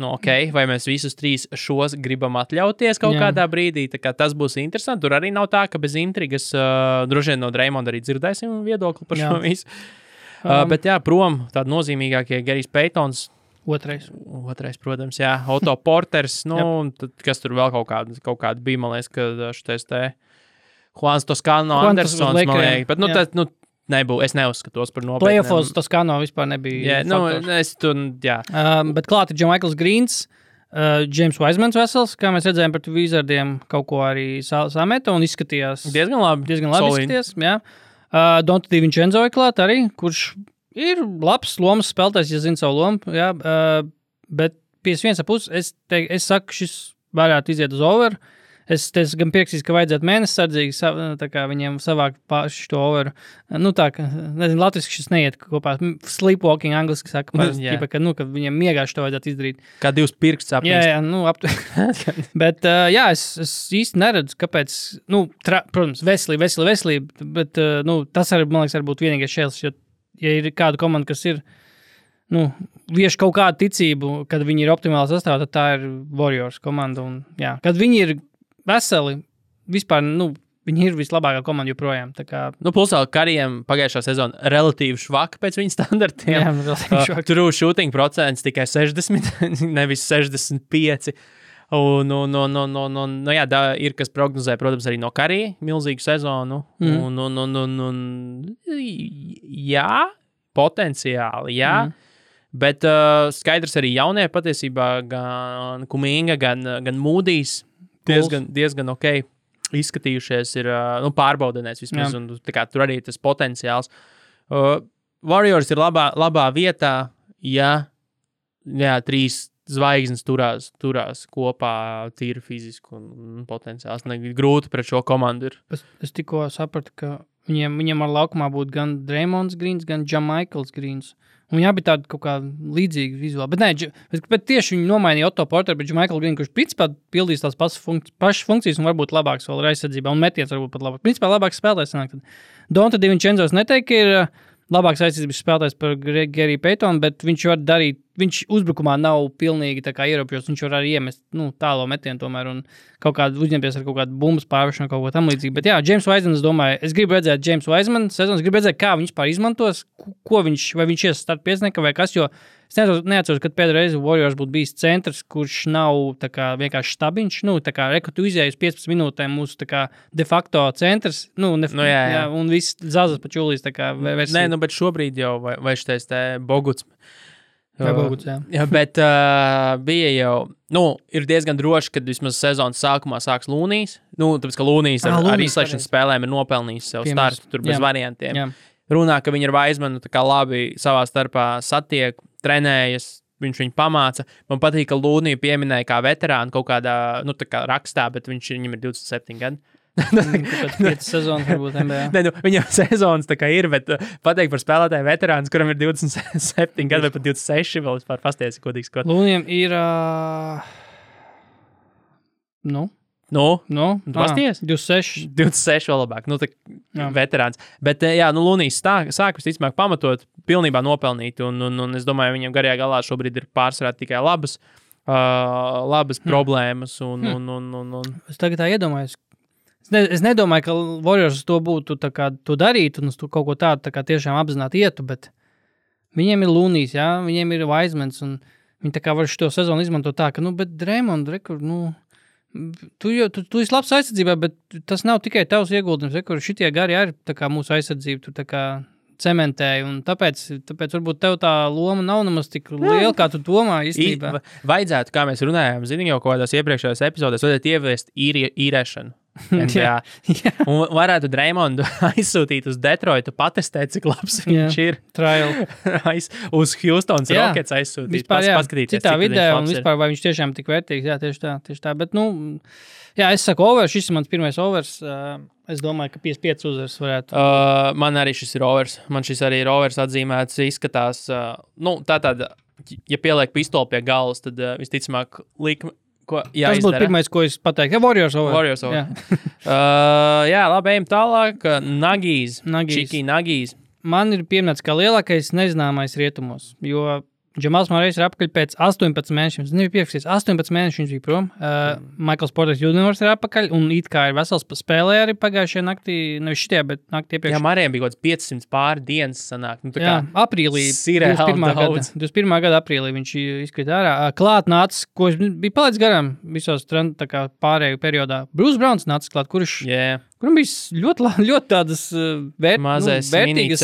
vai mēs visus 3 šos gribam atļauties kaut kādā brīdī, tā kā tas būs interesanti. Tur arī nav tā, ka bez intrigas, droši vien no Draymonda arī dzirdēsim viedokli par šo visu. Bet jā, prom tādi nozīmīgākie Gerijs Paytons.
Otrais,
protams, jā. Otto Porters, tad, kas tur vēl kaut kāda bija, man liekas, ka šitais te Juans Toscano Andersons, man liekas, bet es neuzskatos par nopietniem.
Playoffs Toscano vispār nebija faktors. Bet klāt ir Jamaikls Greens, James Wisemans vesels, kā mēs redzējām par Wizardiem, kaut ko arī sameta un izskatījās
diezgan labi
izskatījās, jā. Donta DiVincenzo ir klāt arī, kurš ir labs lomas spēlētājs, ja zina savu lomu, jā, bet 51,5 es saku, šis varētu iziet uz over. Es gan piekrītu, ka vajadzētu mēnesi sardzīgi, tā kā viņiem savākt paši to overu. Nezinu, latviski šis neiet kopā. Sleepwalking angliski saka, ka viņiem miegāši to vajadzētu izdarīt.
Kā 2 pirksts apmīst.
Jā, bet es īsti neredzu, kāpēc, protams, veselība, bet tas arī, man liekas, būtu vienīgais šēls, jo, ja ir kāda komanda, kas ir, vieš kaut kādu ticību, kad viņi ir optimāli sastāvā, tad tā ir Warriors komanda. Un, jā, kad viņi ir veseli, vispār, viņi ir vislabākā komanda joprojām.
Plus vēl Karijam pagājušā sezona relatīvi švaka pēc viņa standartiem.
Jā, relatīvi švaka.
Tur shooting procents tikai 60, nevis 65. Ir kas prognozē, protams, arī no Karija milzīgu sezonu. Jā, potenciāli, jā. Bet skaidrs arī jaunie patiesībā gan Kuminga, gan Mūdijs diezgan ok izskatījušies ir, pārbaudenēs vismaz, un tur arī tas potenciāls. Warriors ir labā vietā, ja 3 zvaigznes turās kopā tīri fiziski un potenciāls. Grūti pret šo komandu ir.
Es tikko sapratu, ka viņiem ar laukumā būtu gan Draymonds Greens, gan Jamaikls Greens. Un jā, bija tāda kaut kā līdzīga vizuāli. Bet tieši viņi nomainīja Otto Porteru, bet Jamaiklu Greenu, kurš principā pildīs tās pašas funkcijas un varbūt labāks vēl ir aizsardzībā, un metiens varbūt pat labāk. Principā labāks spēlētājs sanāk. Donta DiVincenzo neteiktu, ka ir labāks aizsardzības spēlētājs par Geriju Paytonu, bet viņš var darīt, viņš uzbrukumā nav pilnīgi tā kā ierobežots, viņš var arī iemest tālo metienu tomēr un kaut kādu uzņemties ar kaut kādu bumbas pārvešanu, kaut ko tam līdzīgi. Bet jā, James Wiseman, es domāju, es gribu redzēt James Wiseman sezonas, gribu redzēt, kā viņš pār izmantos, vai viņš ies start pieciniekā vai kas, jo es neatceros, kad pēdējā reize Warriors būtu bijis centrs, kurš nav tā kā vienkārši stabiņš, tā kā tu izēji uz 15 minūtēm mūsu tā kā de facto centrs, jā, un viss zazas pa čulīs tā kā versija.
Nē, bet šobrīd jau vai šitais te Boguts.
Boguts, jā.
Jā, bet bija jau, ir diezgan droši, kad vismaz sezonas sākumā sāks Lūnijs. Tāpēc, ka Lūnijs ar izslēgšanas spēlēm ir nopelnījis sev startu, tur bez variantiem. Jā. Runā, ka viņi ar Wisemanu tā kā labi savā starpā satiek, trenējas, viņš viņu pamāca. Man patīk, ka Lūniju pieminēja kā veterānu kaut kādā, tā kā rakstā, bet viņam ir 27 gadi.
Pēc 5 sezonas varbūt NBA.
Viņam sezonas tā kā ir, bet pateikt par spēlētāju veterāns, kuram ir 27 gadi vai pat 26, vēl vispār pastiesi kodīgs.
Lūnijam ir, pasties?
26 vēl labāk, veterāns. Bet, Lūnijs sāk visticamāk pamatot, pilnībā nopelnīt, un es domāju, viņam garajā galā šobrīd ir pārsvarā tikai labas problēmas. Es
tagad tā iedomājos, Es nedomāju, ka Warriors to būtu tā kā to darīt un uz to kaut ko tādu tā kā tiešām apzināti ietu, bet viņiem ir Lunijs, jā, viņiem ir Wisemans un viņi tā kā var šo sezonu izmantot tā, ka, bet Draymond, rekur, tu esi labs aizsardzībā, bet tas nav tikai tavs ieguldījums, rekur, šitie gari arī tā kā mūsu aizsardzība, tu tā kā cementēji, un tāpēc varbūt tev tā loma nav nemaz tik liela, kā tu domā īstenībā.
Vajadzētu, kā mēs runājām, zini jau kādās iepriekšējās epizodēs, vajadzētu ieviest īrēšanu.
Jā.
Un varētu Draymondu aizsūtīt uz Detroitu, patestēt, cik labs viņš ir.
Trial.
Uz Houstons Rockets aizsūtīt, paskatīties,
citā vidē, un vispār, vai viņš tiešām tik vērtīgs. Jā, tieši tā. Bet, jā, es saku overs, šis ir mans pirmais overs. Es domāju, ka 55 uzvaras varētu.
Man arī šis ir overs. Man šis arī ir overs atzīmēts, izskatās. Tātad, ja pieliek pistoli pie galvas, tad visticamāk likme.
Tas būtu pirmais, ko es pateiktu. Warriors over.
Jā, labi, ejam tālāk. Nagijs. Čiki Nagijs.
Man ir pieminēts kā lielākais nezināmais rietumos, jo Džamals Mārējs ir apakaļ pēc 18 mēnešiem. Es nebiju pierakstīts, 18 mēneši viņš bija prom. Michaels Porter Jr. ir apakaļ, un it kā ir vesels spēlē arī pagājušajā naktī, nevis šitie, bet naktī iepriekš.
Jā, Mārējiem bija kaut 500 pāri dienas sanāk.
Jā, aprīlī, 21. gada aprīlī viņš izkrita ārā. Klāt nācis, ko bija palaidis garām visos pārēju periodā. Bruce Browns nācis klāt, kuram bija ļoti tādas vērtīgas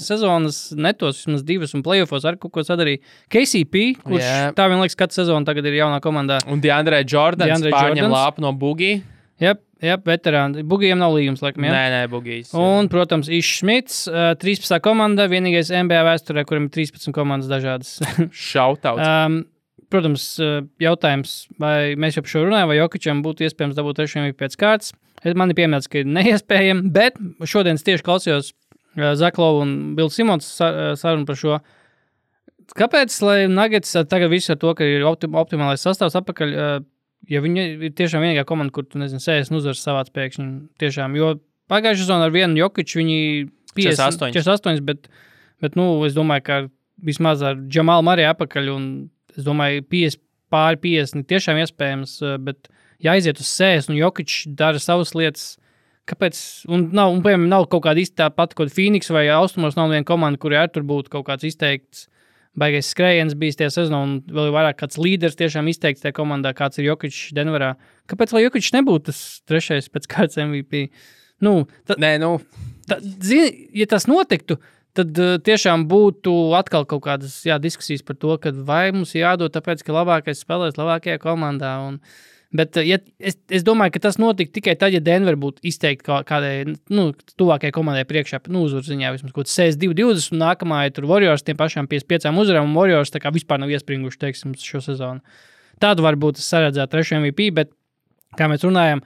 sezonas netos, vismaz 2 un playoffos ar kaut ko sadarīja. KCP, kurš tā vien liekas, katru sezonu tagad ir jaunā komandā.
Un DeAndre Jordans pārņem lāpu no Boogie.
Jā, veterāni. Bugijiem nav līgums, laikam, jā?
Nē, Bugijs.
Un, protams, Ish Smits, 13. komanda, vienīgais NBA vēsturē, kuram ir 13 komandas dažādas.
Shoutouts.
Protams, jautājums, vai mēs jau par šo runājam, vai Jokičam būtu iespējams dabūt 3 MVP pēc kārtas. Man ir pieminēts, ka ir neiespējami, bet šodien es tieši klausījos Zaklovu un Bill Simons sarunu par šo. Kāpēc, lai Nuggets tagad visu ar to, ka ir optimālais sastāvs apakaļ, ja viņi ir tiešām vienīgā komanda, kur tu, 60 uzvaras savāc pēkšņi, tiešām, jo pagājušā sezonā ar vienu Jokiču viņi 48, bet es domāju, ka vismaz ar Džamalu Murray apakaļ, un es domāju, 50 tiešām iespējams, bet jāiziet uz 60, un Jokičs dara savas lietas, kāpēc, un piemēram, nav kaut kāda īsti tāpat, kaut Phoenix vai Austrumos nav viena komanda, kuri arī tur būtu kaut kāds izteikts baigais skrējiens bijis tie sezonā, un vēl vairāk kāds līderis tiešām izteikts tajā komandā, kāds ir Jokičs Denverā. Kāpēc, lai Jokičs nebūtu tas 3. pēc kārtas MVP? Zini, ja tas notiktu, tad tiešām būtu atkal kaut kādas diskusijas par to, ka vai mums jādod tāpēc, ka labākais spēlēs labākajā komandā. Bet es domāju, ka tas notika tikai tad, ja Denver būtu izteikti kādai tuvākajai komandai priekšā, uzvaru ziņā vismaz kaut 62-20, un nākamā ir tur Warriors tiem pašām 55 uzvarām, un Warriors tā kā vispār nav iespringuši, teiksim, šo sezonu. Tādu varbūt es saredzētu 3. MVP, bet, kā mēs runājam,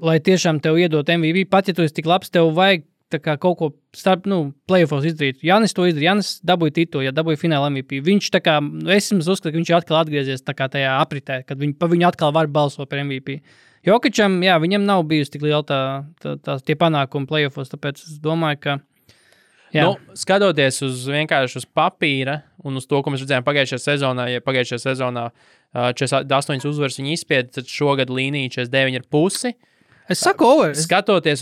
lai tiešām tev iedot MVP, pat ja tu esi tik labs, tev vajag tā kā kaut ko starp, playoffos izdarīt. Janis to izdarīja, Janis dabūja titulu, dabūja fināla MVP. Viņš tā kā, es uzskatu, ka viņš ir atkal atgriezies tā kā tajā apritē, kad viņu atkal var balsot par MVP. Jokičam, viņam nav bijusi tik liela tie panākumi playoffos, tāpēc es domāju, ka
skatoties vienkārši uz papīra un uz to, ko mēs redzējām pagājušajā sezonā, ja pagājušajā sezonā 48 uzvaras viņi izspieda, tad šogad līnija 49,5.
Es saku over.
Skatoties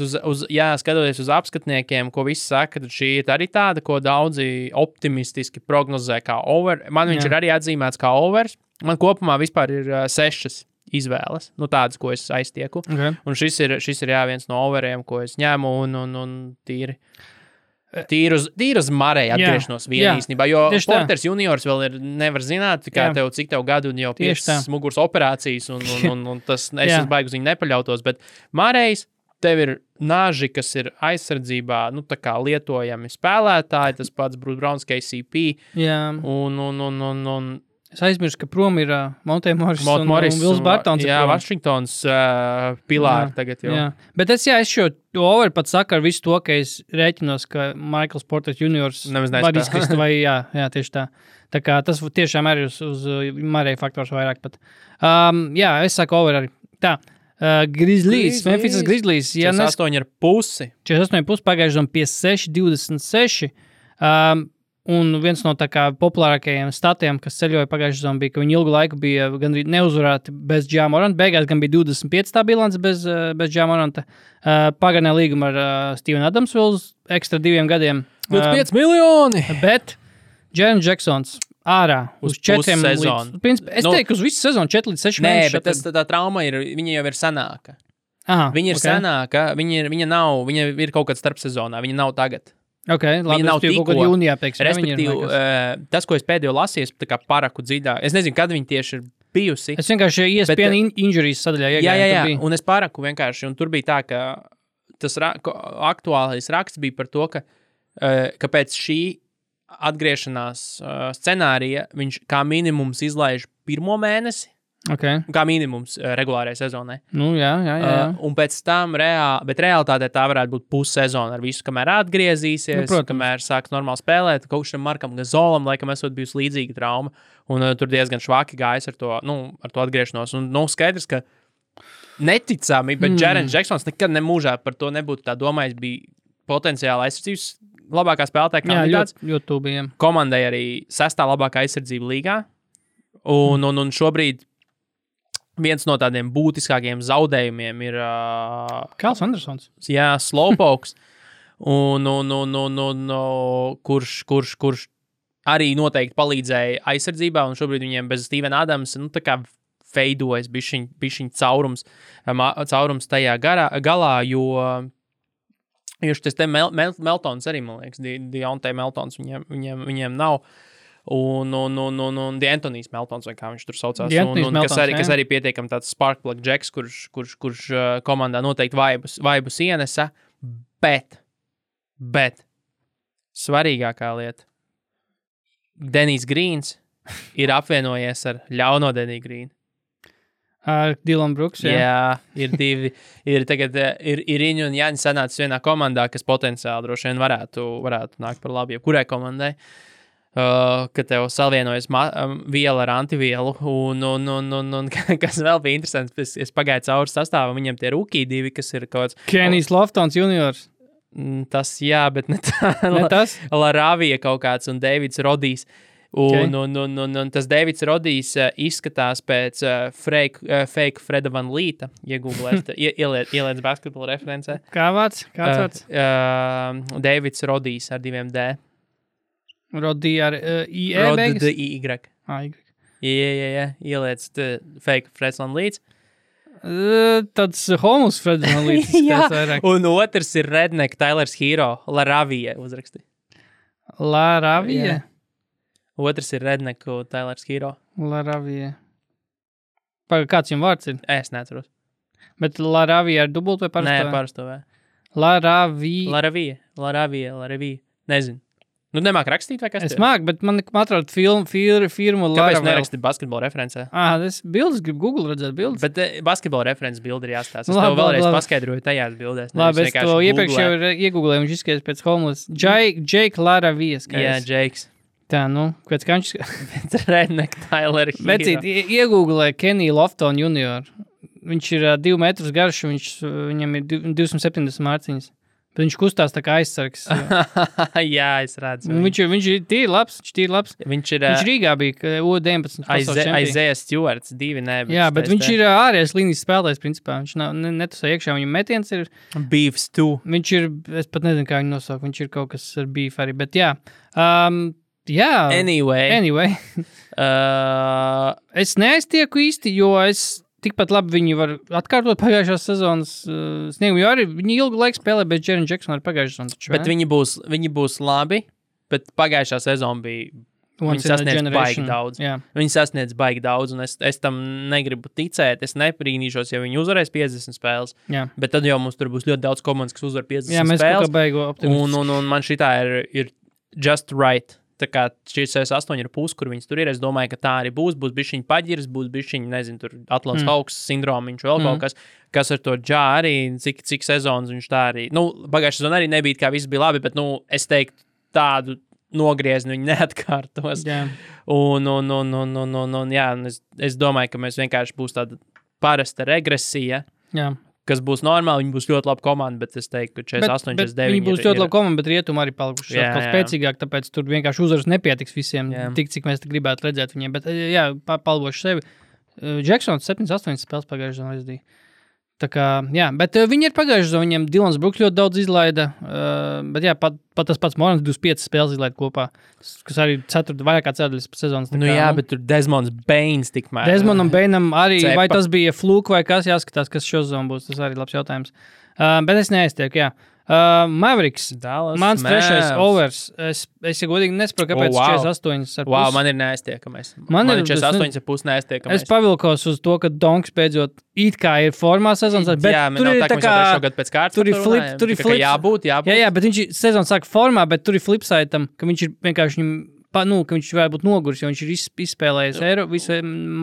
uz apskatniekiem, ko visi saka, tad šī ir arī tāda, ko daudzi optimistiski prognozē kā over. Man viņš ir arī atzīmēts kā overs. Man kopumā vispār ir 6 izvēles, tādas, ko es aiztieku.
Okay.
Un šis ir viens no overiem, ko es ņemu un tīri uz Murray atgriešanos īstenībā, jo Porters juniors vēl nevar zināt, cik tev gadu un jau 5 muguras operācijas, un tas es baigi uz viņu nepaļautos, bet Murrays, tev ir naži, kas ir aizsardzībā, tā kā lietojami spēlētāji, tas pats Bruce Browns, KCP, un
es aizmirstu, ka prom ir Monte Morris un Wills Bartons.
Jā, Vašingtons pilāri tagad jau. Jā.
Bet es šo over pat saku ar visu to, ka es rēķinos, ka Michaels Porter Jr. var izkrist, vai tieši tā. Tā kā tas tiešām arī uz Murray faktors vairāk pat. Es saku over arī. Tā. Grizzlies, Memphis Grizzlies.
48,5.
48,5 pagājuši 56-26. Un viens no tā kā populārākajiem statiem, kas ceļoja pagājušajā sezonā, bija, ka viņi ilgu laiku bija gandrīz neuzvarēti bez Ja Moranta. Beigās gan bija 25 tā bilance bez Ja Moranta. Pagarināja līgumu ar Stevenu Adamsvilu ekstra 2 gadiem.
25 miljoni!
Bet Jaren Jacksons ārā
Uz
4
pussezonu.
Es teiktu, uz visu sezonu 4 līdz 6
Nē,
mēnešus.
bet tā trauma viņa jau ir senāka.
Aha,
Viņa ir senāka, viņa ir kaut kad starp sezonā, viņa nav tagad.
Okay, labi,
Viņa nav
kaut
tikko.
kad jūnijā, teiksim.
Respektīvi, tas, ko es pēdējo lasīju, tā kā paraku dziļāk. Es nezinu, kad viņa tieši ir bijusi.
Es vienkārši ESPN injuries sadaļā iegāju.
Jā, un es paraku vienkārši, un tur bija tā, ka tas aktuālais raksts bija par to, ka pēc šī atgriešanās scenārija viņš kā minimums izlaiž 1. mēnesi,
Okay.
kā minimums regulārajai sezonai.
Nu, jā.
Un pēc tam bet realitātē tā varētu būt pussezona ar visu, kamēr atgriezīsies, kamēr sāks normāli spēlēt. Kaut šim Markam Gazolam, laikam, esot bijusi līdzīga trauma, un tur diezgan švaki gājis ar to atgriešanos. Un, skaidrs, ka neticami, bet Jaren Jacksons nekad nemūžā par to nebūtu tā domājis, bija potenciāli aizsardzības labākā spēlētāja kandidāts.
Jā, ļoti tūbījiem.
Komandai arī 6. labākā aizsardzība līgā, un šobrīd viens no tādiem būtiskākiem zaudējumiem ir
Kāls Andersons.
Jā, Slowpokes, kurš arī noteikti palīdzēja aizsardzībā, un šobrīd viņiem bez Stevena Adamsa, tā kā veidojas bišķiņ caurums tajā galā, jo šis te Meltons arī, man liekas, Deontay Meltons viņiem nav. Un D'Antonijs Meltons, vai kā viņš tur saucās, kas arī pietiekami tāds sparkplug džeks, kurš komandā noteikti vaibus ienesa, bet svarīgākā lieta, Denijs Grīns ir apvienojies ar ļauno Deniju Grīnu.
Ar Dylan Brooks,
jā, ir divi, ir Riņu un Jāņa sanācis vienā komandā, kas potenciāli droši vien varētu nākt par labu jebkurai komandai. Ka tev salvienojas viela ar antivielu, un kas vēl bija interesants, es pagāju cauri sastāvam, viņiem tie rookie divi, kas ir kaut kāds...
Kenijs Loftons juniors.
Tas, jā, bet ne tā.
Ne tas?
Laravija kaut kāds un Davids Rodijs. Un tas Davids Rodijs izskatās pēc fake Freda Van Līta, ieliec basketbola referencē.
Kāds vārds?
Davids Rodijs ar 2 D.
Rodī ar IE beigas?
Y. Jā, ieliec fake Freds Van Līts.
Tāds homus Freds Van Līts.
Jā, un otrs ir Redneck Tylers Hero, Laravija uzraksti.
Laravija?
Otrs ir Redneck Tylers Hero.
Laravija. Kāds jums vārds ir?
Es neatceros.
Bet Laravija ar dubultu vai parasto?
Nē, parasto vai. Laravija. Nezinu. Nu, nemāk rakstīt, vai kas
es māku, bet man atrod firmu Laravel.
Kāpēc neraksti basketbola referencē?
Es bildes gribu Google redzēt bildes.
Bet basketbola references bildi ir jāstāsta. Es tev vēlreiz paskaidroju tajās bildēs.
Labi, es to iepriekš jau iegooglēju, viņš izskatās pēc homeless. Jake Laravijas.
Jā, Jakes.
Tā, pēc kā viņš...
Redneck Tyler Hero.
Vecīt, iegooglēju Keniju Lofton junior. Viņš ir 2 metrus garš, viņam ir 270 mārciņas. Bet viņš kustās tā kā aizsargs.
Jā, es redzu.
Viņš ir tīri labs. Viņš Rīgā bija U19 pasaules čempions.
Isaiah Stewarts, 2 ne.
Jā, bet viņš ir ārējais līnijas spēlētājs, principā. Viņš netusā iekšā, viņam metiens ir...
Beefs 2.
Viņš ir, es pat nezinu, kā viņu nosaukt, viņš ir kaut kas ar beef arī, bet jā. Jā. Anyway. Es neaiztieku īsti, jo es... Tikpat labi viņi var atkārtot pagājušās sezonas sniegumu, jo arī viņi ilgu laiku spēlē bez Jaren Jacksona ar pagājušās sezonas.
Bet viņi būs labi, bet pagājušā sezona bija... Viņi sasniedz baigi daudz.
Jā.
Viņi sasniedz baigi daudz, un es tam negribu ticēt. Es neprīnīšos, ja viņi uzvarēs 50 spēles.
Jā.
Bet tad jau mums tur būs ļoti daudz komandas, kas uzvar 50 spēles.
Jā, mēs kaut kā baigo optimistiski.
Un man šitā ir just right. Tā kā šīs 8 ir pusi, kur viņas tur ir. Es domāju, ka tā arī būs bišķiņ paģirs, būs bišķiņ, nezinu, tur Atlants Hawks sindromiņš vēl kaut kas ar to džā arī, cik sezonas viņš tā arī. Pagājušā sezona arī nebija, kā viss bija labi, bet, es teiktu, tādu nogriezni viņi neatkārtos.
Jā.
Un jā, es domāju, ka mēs vienkārši būs tāda parasta regresija.
Jā.
kas būs normāli, viņi būs ļoti labi komanda, bet es teiktu, ka 48, 49
viņi būs ļoti labi komanda, bet rietumi arī palikuši kaut spēcīgāk, tāpēc tur vienkārši uzvaras nepietiks visiem, tik, cik mēs gribētu redzēt viņiem. Bet, jā, palbošu sevi. Jacksons 7-8 spēles pagājušajā zonā aizdīja. Tā kā, jā, bet viņi ir pagājuši zonā, viņiem Dylans Brooks ļoti daudz izlaida, bet jā, pat tas pats Morans 25 spēles izlaida kopā, kas arī vairāk kā ceturdaļas sezonas.
Nu jā, bet tur Desmonds Bains tikmēr.
Desmondam Bainam arī, vai tas bija fluke vai kas, jāskatās, kas šo zonu būs, tas arī labs jautājums. Bet es neaiztieku, jā. Mavericks,
Dallas
mans trešais overs. Es ja godīgi nesaprotu, kāpēc 48 ar
Wow, man ir neaiztiekamais. Man ir 48 ar pus neaiztiekamais.
Es pavilkos uz to, ka Donks beidzot it kā ir formā sezonas, bet
jā,
tur ir tā kā
šogad pēc kārtas.
Tur ir flip.
Jābūt.
Jā, bet viņš sezonas sāk formā, bet tur ir flipsaitam, ka viņš ir vienkārši ka viņš varētu būt noguris, jo viņš ir izspēlējis Eiro visu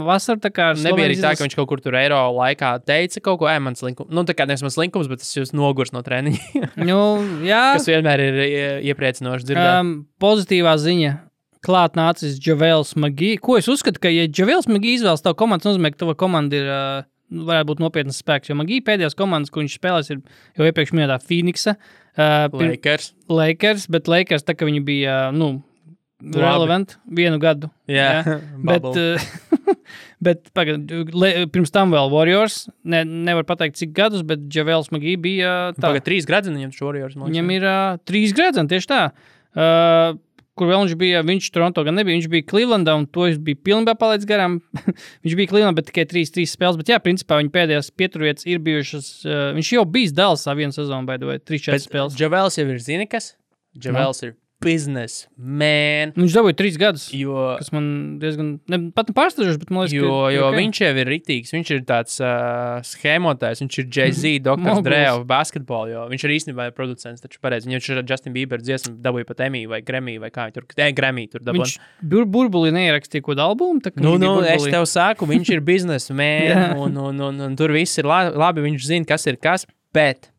vasaru, tā kā
nebija arī tā, ka viņš kaut kur tur Eiro laikā teica kaut ko, mans linkums, nu tā kā nevis mans linkums, bet es jūs noguris no treniņa.
Nu, jā.
Kas vienmēr ir iepriecinoši dzirdēt.
Pozitīvā ziņa. Klāt nācis Javels McGee. Ko es uzskatu, ka ja Javels McGee izvēlas tavu komandu, nozīmē, ka tava komanda ir, varētu būt nopietnas spēks, jo McGee pēdējās komandas, ko viņš spēlēs, ir jau iepriekš minētā Phoenixa. Lakers, bet Lakers tā, ka viņi bija, relevant vienu gadu.
Jā.
Bet pirms tam vēl Warriors. Nevar pateikt, cik gadus, bet Javels McGee bija tā.
Pagad 3 gradzeni viņam Warriors.
Viņam ir 3 gradzeni, tieši tā. Kur vēl viņš bija, viņš Toronto gan nebija, viņš bija Clevelandā, un to es biju pilnībā palaidis garām. Viņš bija Clevelandā, bet tikai 3 spēles, bet jā, principā viņa pēdējās pieturvietas ir bijušas, viņš jau bijis Dallasā vienu sezonu, vai 3-4 spēles.
Javels jau ir zini kas? Javels ir business man.
Viņš dabūja 3 gadus, kas man diezgan, pat pārsteidzoši, bet man liekas,
jo
okay.
Viņš jau ir ritīgs, viņš ir tāds schēmotājs, viņš ir Jay-Z, Dr. Dre of basketball, jo viņš ir īstenībā producents, taču pareizi, viņš ir Justin Bieber dziesmu dabūja pat Emmy vai Grammy vai kā tur, Grammy tur dabūja.
Viņš burbuli neierakstīja kaut albumu?
Es tev saku, viņš ir business man, un tur viss ir labi, viņš zina, kas ir kas, bet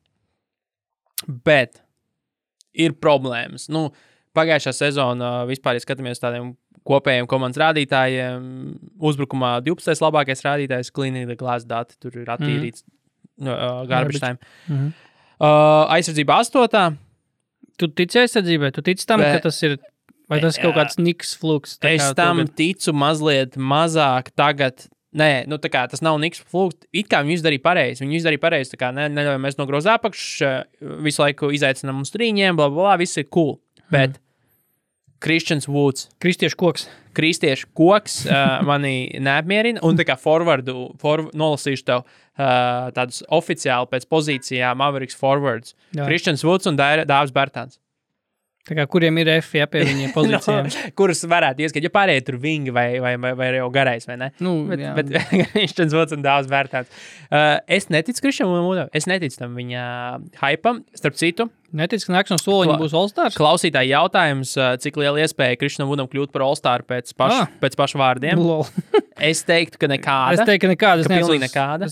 ir problēmas. Pagājušā sezona vispār, ja skatāmies tādiem kopējiem komandas rādītājiem, uzbrukumā 12. labākais rādītājs, cleaning the glass dati, tur ir attīrīts garbage time. Aizsardzība 8.
Tu tici aizsardzībai? Tu tici tam, ka tas ir, vai tas kaut kāds niks fluks?
Es tam ticu mazliet mazāk tagad. Nē, tā kā tas nav niks fluks. It kā viņi izdarīja pareizi. Tā kā neļauj mēs no groza apakš, visu laiku izaicinām uz trīņiem, blablabla, viss ir cool. Bet Christians Woods. Kristiešu koks mani neapmierina. Un tā kā nolasīšu tev tādus oficiāli pēc pozīcijām Mavericks forwards. Jā. Christians Woods un Dāvis Bertāns.
Tā kā kuriem ir F, pie viņiem pozīcijām.
Kuras varētu ieskat, ja pārējie tur vingi vai jau garais, vai ne? Bet Christians Woods un Dāvis Bertāns. Es neticu Christianam Woodam, es neticu tam viņa hypam, starp citu.
Neticu, ka nākšanas soliņa būs All-Stars?
Klausītāji jautājums, cik liela iespēja Christianam Woodam kļūt par All-Star pēc pašu vārdiem. Es teiktu, ka nekāda.
Es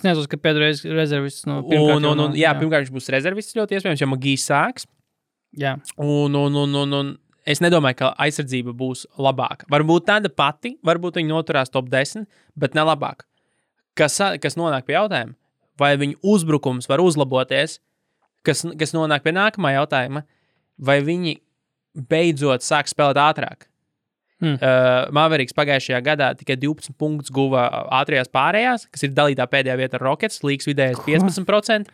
nezinu, ka pēdējais rezervists pirmkārt.
Jā, pirmkārt viņš būs rezervists ļoti iespējams, jo Magijs sāks.
Jā.
Un es nedomāju, ka aizsardzība būs labāka. Varbūt tāda pati, varbūt viņi noturās top 10, bet ne labāk. Kas nonāk pie jautājuma? Vai viņu uzbrukums var uzlaboties? Kas nonāk pie nākamā jautājuma? Vai viņi beidzot sāk spēlēt ātrāk? Mavericks pagājušajā gadā tikai 12 punktus guva ātrajās pārējās, kas ir dalītā pēdējā vieta ar Rockets, līgas vidējais 15%.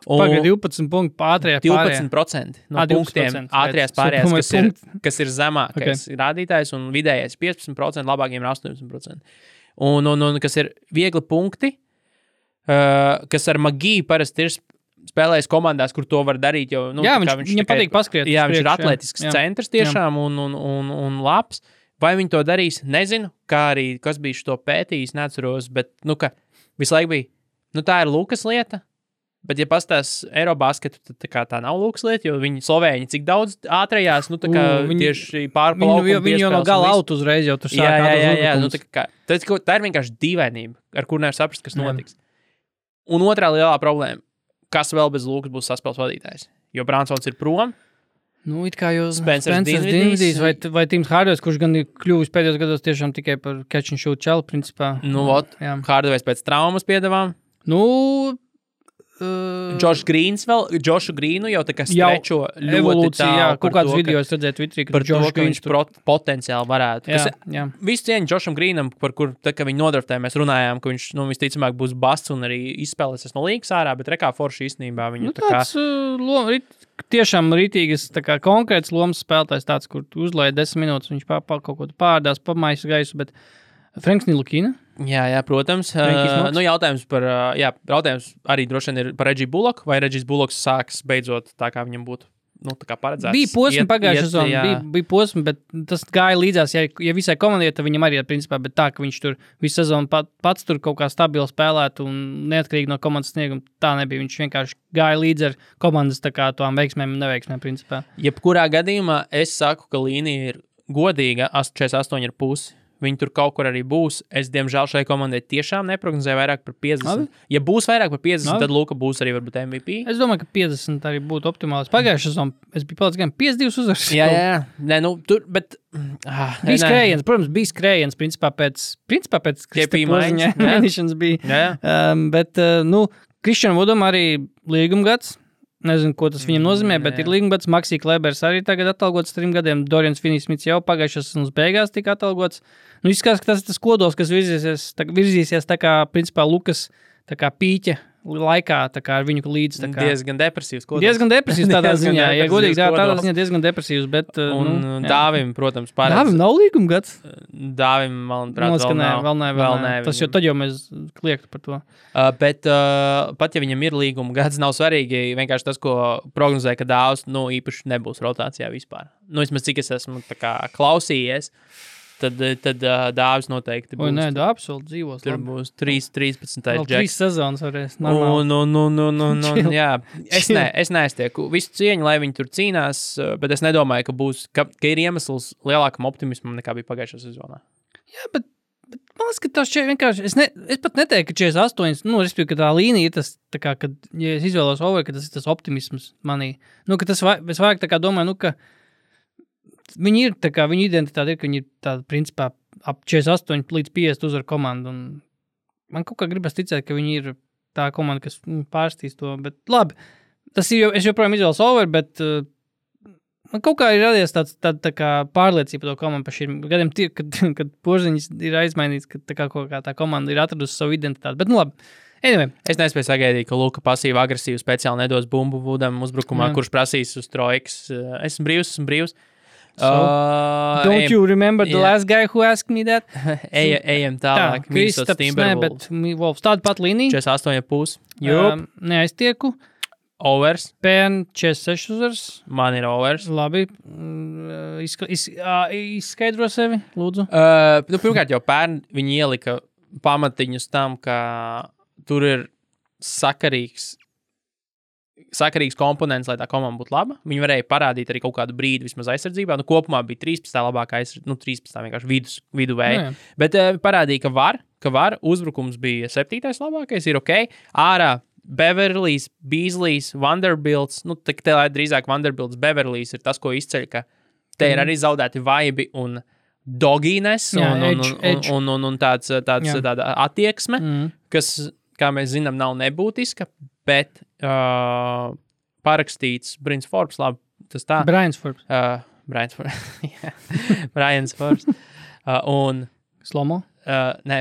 Pagaid 12 punktu ātrajā pārējā.
12% no punktiem ātrajās pārējās, kas ir zemākais rādītājs, un vidējais 15%, labākiem ir 18%. Un kas ir viegli punkti, kas ar Magiju parasti ir spēlējis komandās, kur to var darīt, jo
viņam patīk paskriet.
Jā, viņš ir atletisks centrs tiešām un labs. Vai viņi to darīs? Nezinu, kā arī, kas bija šo pētījis, neatceros, bet, ka visu laiku bija, tā ir Lukas lieta. Bet, ja pastāstās Eirobasketu, tad tā nav Lukas lieta, jo viņi Slovēņi cik daudz ātrajās, tieši pārpalaukumu
viņi jau no gala out uzreiz jau tur sāk.
Jā. Tā ir vienkārši dīvainība, ar kur nevar saprast, kas notiks. Un otrā lielā problēma, kas vēl bez Lukas būs saspēles vadītājs? Jo Bransons ir prom.
It kā jau Spencers Dinvidijs vai Tims Hardaway's, kurš gan ir kļuvis pēdējos gados tiešām tikai par catch and shoot čelu, principā.
Hardaway's pēc traumas piedevām. Džošs Grīns Džošu Grīnu jau tā kā strečo ļoti
evolūcija, jā,
tālu
kaut kāds video es redzēju Twitterī,
par to, ka viņš potenciāli varētu.
Jā.
Visu cieņu Džošam Grīnam, par kur, tā kā viņi nodraftē, mēs runājām, ka viņš, visticamāk, būs basts un arī izspēlēsies no līgas ārā, bet rekā forši īstenībā viņu
tāds tiešām rītīgas, tā kā konkrēts lomas spēlētājs tāds, kur uzlēja 10 minūtes, viņš kaut ko pārdās, pamais gaisu, bet Franks Ntilikina.
Jā, protams. Jautājums arī droši vien ir par Regiju Bulloku, vai Regijs Bullocks sāks beidzot tā, kā viņam būtu tā kā paredzēts.
Bija posmi pagājušā sezonā, bija posmi, bet tas gāja līdzās, ja visai komandai, tad viņam arī principā, bet tā, ka viņš tur visu sezonu pats tur kaut kā stabili spēlētu un neatkarīgi no komandas snieguma, tā nebija. Viņš vienkārši gāja līdz ar komandas tā kā tām veiksmēm un neveiksmēm principā.
Jebkurā gadījumā es saku, ka līnija ir godīga, 48,5. Viņi tur kaut kur arī būs. Es, diemžēl, šai komandai tiešām neprognozēju vairāk par 50.
Labi.
Ja būs vairāk par 50, tad Luka būs arī varbūt MVP.
Es domāju, ka 50 arī būtu optimāls. Pagājušā sezonā es biju palicis gan 52 uzvaras.
Jā. Nē, tur, bet...
Bija skrējiens, protams, bija skrējiens, principā pēc mēnešanas bija. Bet, Kristianam Vudam arī līguma gads. Nezinu, ko tas viņam nozīmē, bet ir līgumgads. Maksī Klebers arī tagad atalgots 3 gadiem. Dorians Finney-Smits jau pagājušās sezonas beigās tika atalgots. Izskatās, ka tas ir tas kodols, kas virzīsies tā kā, principā, Lukas tā kā pīķa laikā, tā kā ar viņu līdz. Tā kā
diezgan depresīvs kodols.
Diezgan depresīvs tādā ziņā. Ja godīgi, tādā ziņā diezgan depresīvs, bet...
Dāvim, protams, paredz.
Dāvim nav līgumgads?
Dāvim, manuprāt,
vēl nav. Tas jau tad jau mēs kliegtu par to.
Bet pat ja viņam ir līguma gads, nav svarīgi vienkārši tas, ko prognozēja, ka Dāvs, īpaši nebūs rotācijā vispār. Vismaz cik es esmu tā kā klausījies, tad Dāvis noteikti būs.
Nē, Dāvis vēl dzīvos.
Tur būs 13.
Vēl 3 sezonas varēs.
Jā. Es neiztieku visu cieņu, lai viņi tur cīnās, bet es nedomāju, ka ir iemesls lielākam optimismam nekā bija pagājušā sezonā.
Jā, bet man liekas, ka tas vienkārši, es pat neteiktu, ka 48, respektīvi, ka tā līnija ir tas, tā kā, kad, ja es izvēlos over, ka tas ir tas optimisms manī. Ka tas es vairāk tā kā domāju, ka viņi ir, tā kā, viņu identitāte ir, ka viņi ir tāda, principā, ap 48 līdz 50 uzvar komandu, un man kaut kā gribas ticēt, ka viņi ir tā komanda, kas pārstīs to, bet labi, tas ir, es joprojām izvēlos over, bet man kaut kā ir radies tā kā pārliecība par to komandu par šiem gadiem, kad Porziņš ir aizmainīts, ka tā komanda ir atradusi savu identitāti, bet labi. Anyway.
Es nespēju sagaidīt, ka Luka pasīvi agresīvi speciāli nedos bumbu Vudam uzbrukumā, kurš prasīs uz trojkas. Esmu brīvs.
Don't you remember the last guy who asked me that?
Ejam tālāk.
Kristaps, bet Wolfs tāda pat līnija.
48,5.
Neaiztieku.
Overs.
Pērn 46 uzvaras.
Man ir overs.
Labi. Izskaidro sevi, lūdzu.
Pirmkārt jau pērn viņi ielika pamatiņus tam, ka tur ir sakarīgs komponents, lai tā komanda būtu laba. Viņi varēja parādīt arī kaut kādu brīdi vismaz aizsardzībā. Kopumā bija 13. labākā aizsardzība, 13. vienkārši viduvēja. Bet parādīja, ka var. Uzbrukums bija 7. labākais, ir ok. Ārā Beverlijs, Beaslejs, Vanderbilts. Te drīzāk Vanderbilts, Beverlijs ir tas, ko izceļ, ka te ir arī zaudēti vaibi un dogīnes un tāda attieksme, kas, kā mēs zinām, nav nebūtiska, bet parakstīts Brins Forbes, labi, tas tā.
Brians Forbes.
Brians Forbes. Un...
Slomo?
Nē,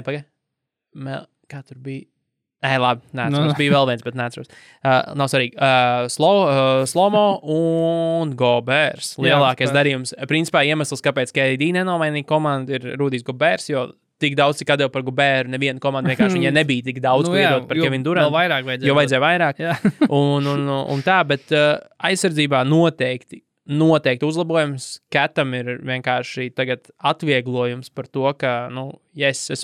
kā tur bija? Labi, neatceros. Bija vēl viens, bet neatceros. Nav svarīgi. Slomo un Gobers. Lielākais darījums. Principā iemesls, kāpēc KD nenomainīja komandu, ir Rudijs Gobers, jo tik daudz, cik atdeva par Goberu, neviena komanda vienkārši viņai nebija tik daudz, ko iedot par Kevinu Durantu. Jo vajadzēja vairāk. un tā, bet aizsardzībā noteikti uzlabojums. Katam ir vienkārši tagad atvieglojums par to, ka, es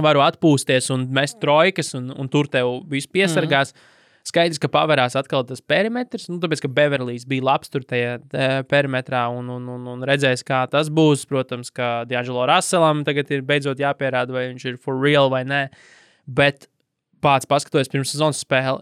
varu atpūsties un mest trojkas un tur tev visu piesargās. Skaidrs, ka paverās atkal tas perimetrs, tāpēc, ka Beverlijs bija labs tur tajā perimetrā un redzēs, kā tas būs. Protams, ka D'Angelo Russellam tagad ir beidzot jāpierāda, vai viņš ir for real vai nē. Bet pats paskatoties pirms sezonas spēli,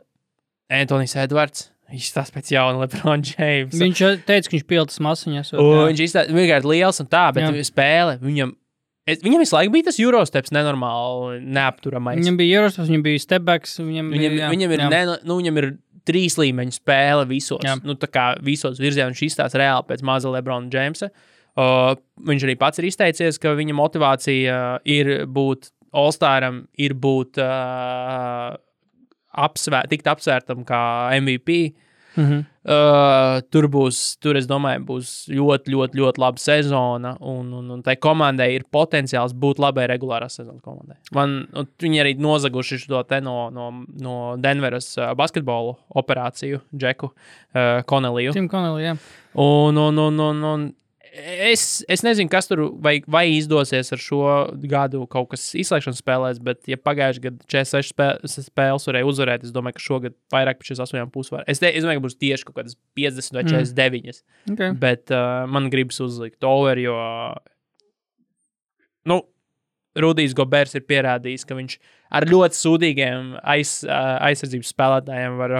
Anthony's Edwards, viņš stāsta pēc jauna LeBron James.
Viņš teica, ka viņš piltas masiņas.
Viņš izstāsta vienkārši liels un tā, bet spēle viņam Viņam visu laiku bija tas Eurosteps nenormāli neapturamais.
Viņam bija Eurosteps, viņam bija stepbacks.
Viņam ir 3 līmeņu spēle visos.
Jā.
Nu, tā kā visos virzienos viņš izstāsta reāli pēc maza Lebrona Jamesa. Viņš arī pats ir izteicies, ka viņa motivācija ir būt All-Staram, ir būt tikt apsvērtam kā MVP. Tur es domāju, būs ļoti, ļoti, ļoti laba sezona, un tai komandai ir potenciāls būt labai regulārās sezonas komandai. Viņi arī nozaguši šo te no Denveras basketbolu operāciju, Džeku Connelliju.
Tim Connelly, jā.
Un es nezinu, kas tur vai izdosies ar šo gadu kaut kas izslēgšanas spēlēs, bet ja pagājuši gadu 46 spēles varēja uzvarēt, es domāju, ka šogad vairāk par 48,5 var. Es domāju, ka būs tieši kaut kādas 50 vai 49.
Okay.
Bet man gribas uzlikt over, jo Rudijs Goberts ir pierādījis, ka viņš ar ļoti sūdīgiem aizsardzības spēlētājiem var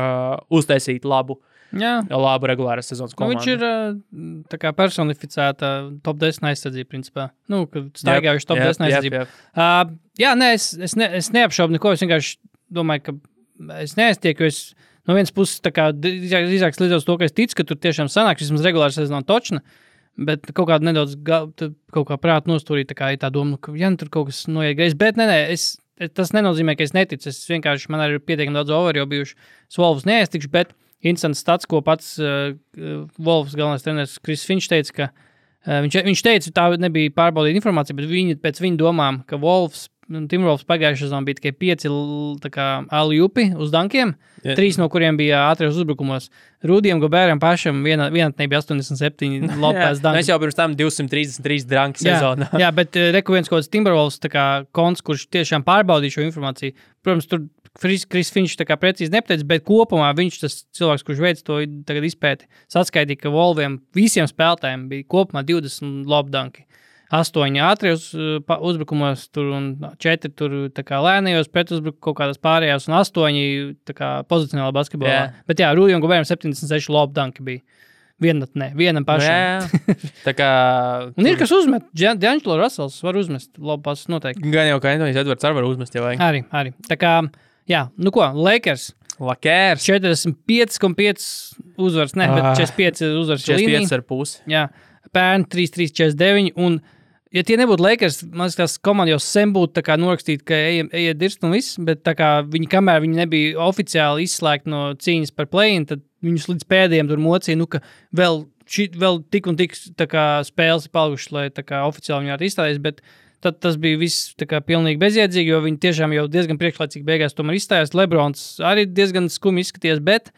uztaisīt labu regulāras sezonas komandu.
Viņš ir tā kā personificēta top 10 aizsardzība, principā. Kad staigājuši top 10 aizsardzība. Es neapšaubu neko, es vienkārši domāju, ka es neaiztieku, jo es no vienas puses tā kā drīzāk slīdzos to, ka es ticu, ka tur tiešām sanāks, vismaz regulāra sezona točna, bet kaut kādu nedaudz kaut kā prātu nostūrīt, tā kā ir tā doma, ka tur kaut kas noiet greizi, bet tas nenozīmē, ka es neticu, es vienkārši, man arī ir pietiekami daudz over, jo bijuši Wolves neaiztikšu, bet interesants stats, ko pats Wolves galvenais treneris Chris Finch teica, ka viņš teica, tā nebija pārbaudīta informācija, bet pēc viņa domām, ka Timberwolves pagājušajā sezonā bija tikai 5 alley-oopi uz dankiem, 3 no kuriem bija ātrijos uzbrukumos. Rudijam Goberam pašam vienatnē bija 87 lopēs danki.
Mēs jau pirms tam 233 danki sezonā.
Jā, bet reku viens kaut kāds Timberwolves konts, kurš tiešām pārbaudīja šo informāciju. Protams, tur Chris Finch tā kā precīzi nepateica, bet kopumā viņš tas cilvēks, kurš veids to tagad izpēti, saskaitīja, ka Wolviem visiem spēlētājiem bija kopumā 20 lopdanki. 8 ātrijos uzbrukumos tur un 4 tur tā kā lēnajos pretuzbrukumos kaut kādās pārējās un 8 tā kā pozicionālā basketbolā. Yeah. Bet jā, Rudijam Goberam 76 lopdanki bija. Vienam pašam.
Tā kā...
Un ir kas uzmet. D'Angelo Russells var uzmest lopās noteikti.
Gan jau, ka Anthony's Edwards arī var uzmest, ja vajag.
Arī. Tā kā, jā, Lakers. 45,5 uzvars, bet 45 uzvars līnija.
45,5.
Jā, pērn 3-3-49 un ja tie nebūtu Lakers, man liekas, komanda jau sen būtu tā kā norakstīt, ka ejiet dirst un viss, bet tā kā kamēr viņi nebija oficiāli izslēgti no cīņas par play-in, tad viņus līdz pēdējiem tur mocīja, ka vēl tik un tik tā kā spēles ir palikušas, lai tā kā oficiāli viņi varētu izstāties, bet tad tas bija viss tā kā pilnīgi bezjēdzīgi, jo viņi tiešām jau diezgan priekšlaicīgi beigās tomēr izstājās. Lebrons arī diezgan skumi izskaties, bet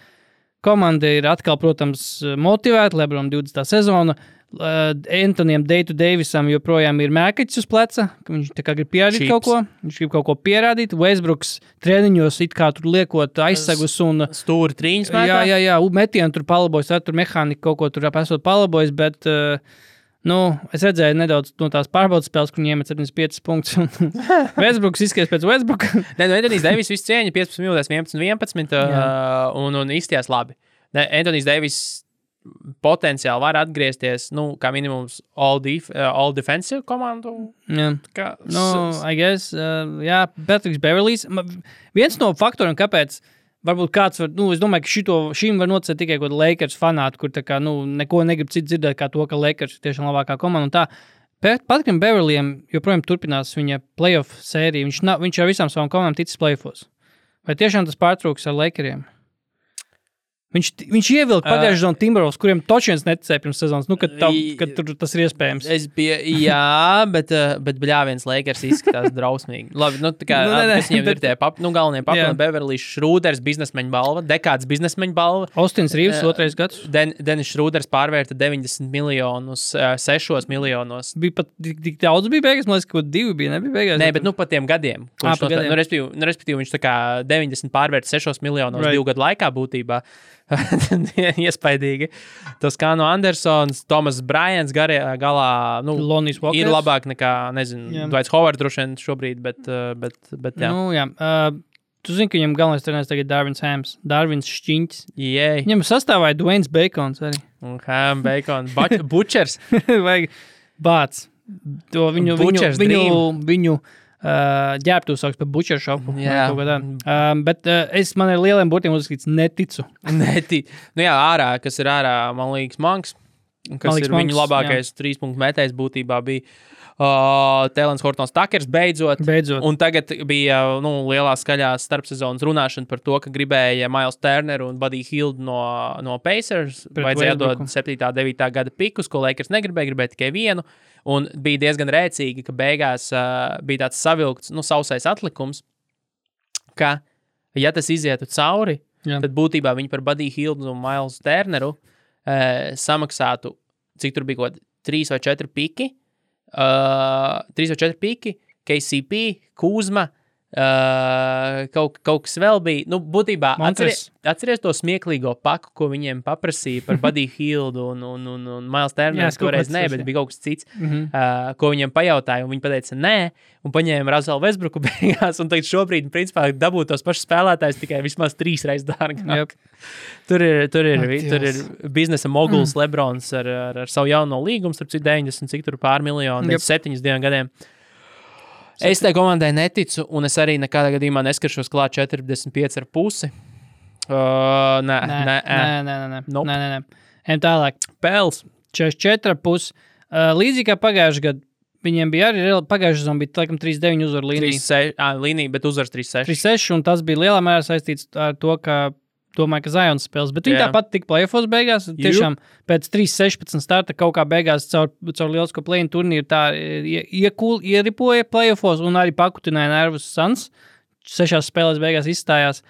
komanda ir atkal, protams, motivēta, Lebron 20. sezona, Antonijam Davisam joprojām ir mēkaķis uz pleca, ka viņš tā kā grib pierādīt kaut ko. Viņš grib kaut ko pierādīt. Westbrooks treniņos it kā tur liekot aizsegus un...
Stūri trīņas mētā?
Jā, metienu tur palabojas, tur mehānika kaut ko tur esot palabojas, bet, es redzēju nedaudz no tās pārbaudas spēles, kur viņi iemet 75 punktus. Westbrooks izskaties pēc Westbrooka.
Antonijs Davis visu cieņa 15 minūtēs 11 un izstījās labi. Antonijs Davis potenciāli var atgriezties, kā minimums all defensive komandu.
I guess, Patriks Beverlīs. Viens no faktoriem, kāpēc varbūt kāds var, es domāju, ka šim var nocēt tikai kaut Lakers fanāti, kur tā kā, neko negrib citu dzirdēt kā to, ka Lakers ir tiešām labākā komanda un tā. Patrikam Beverlījam joprojām turpinās viņa playoff sērija. Viņš ar visām savām komandām ticis playoffos. Vai tiešām tas pārtrūks ar Lakeriem? Viņš ievilka pagājušajā sezonā Timberwolves, kuriem toči viens neticēja pirms sezonas, kad tur tas ir iespējams.
Bet bļāviens Lakers izskatās drausmīgi. Labi, kas viņiem ir tie galvenie papildi, Beverlijs Šrūders, biznesmeņa balva, dekāds biznesmeņa balva.
Austins Rīvs, 2. gads.
Denis Šrūders pārvērta 90 miljonus 6 miljonos.
Bija pat tik daudz bija beigās, man liekas, ka 2 bija, nebija beigās.
Nē, bet pa tiem gadiem. Respektīvi, viņš tā kā 90 pārvērta 6 miljonos 2 gadu laikā būtībā. Iespaidīgi. Tas kā no Andersons, Tomas Bryants galā ir labāk nekā, Dwights Howard droši vien šobrīd, bet jā.
Tu zini, ka viņam galvenais treneris tagad Darvins Hams, Darvins Šķiņķis.
Yeah.
Viņam sastāvēja Dwaynes Bacons arī.
Ham, Bacon, Butchers.
Vajag Bāts. to viņu ģērbtu sauks par butcher shopu.
Jā.
Bet man ir lieliem burtiem uzskatīts neticu.
Nu jā, ārā, kas ir ārā, man liekas, Manks, kas ir viņu labākais 3-punktu metējs būtībā bija Tēlens Hortons Takers beidzot. Un tagad bija lielā skaļā starpsezonas runāšana par to, ka gribēja Miles Turneru un Buddy Hield no Pacers. Vajadzēja dot 7. 9. gada pikus, ko Lakers gribēja tikai vienu. Un bija diezgan rēcīgi, ka beigās bija tāds savilkts, sausais atlikums, ka, ja tas izietu cauri, tad būtībā viņi par Buddy Hield un Miles Turneru samaksātu, cik tur bija kaut 3 vai 4 piki, 3 vai 4 piki, KCP, Kuzma, kaut kas vēl bija. Nu, būtībā atceries to smieklīgo paku, ko viņiem paprasīja par Buddy Hield un Miles Turner. Toreiz nē, bet bija kaut kas cits, ko viņiem pajautāja, un viņi pateica nē, un paņēma Russell Westbrooku beigās, un tagad šobrīd, principā, dabūt tos pašus spēlētājus tikai vismaz 3 reizes dārgāk. Tur ir biznesa moguls Lebrons ar savu jauno līgumu, starp citu 90, cik tur pār miljonu, 7 gadiem. Es tai komandai neticu, un es arī nekādā gadījumā neskaršos klāt 45,5. Nē.
Ejam tālāk.
Pēls.
44,5. Līdzīgi kā pagājušajā gadā, viņiem bija arī pagājušajā sezonā bija laikam 3-9 uzvaru līnija.
Līnija, bet uzvars 3-6.
3-6, un tas bija lielā mērā saistīts ar to, ka domāju, ka Zions spēles, bet viņi tāpat tika play-offos beigās. Tiešām pēc 3-16 starta kaut kā beigās caur lielisko play-in turnīru tā ieripoja play-offos un arī pakutināja nervus Suns. 6 spēlēs beigās izstājās.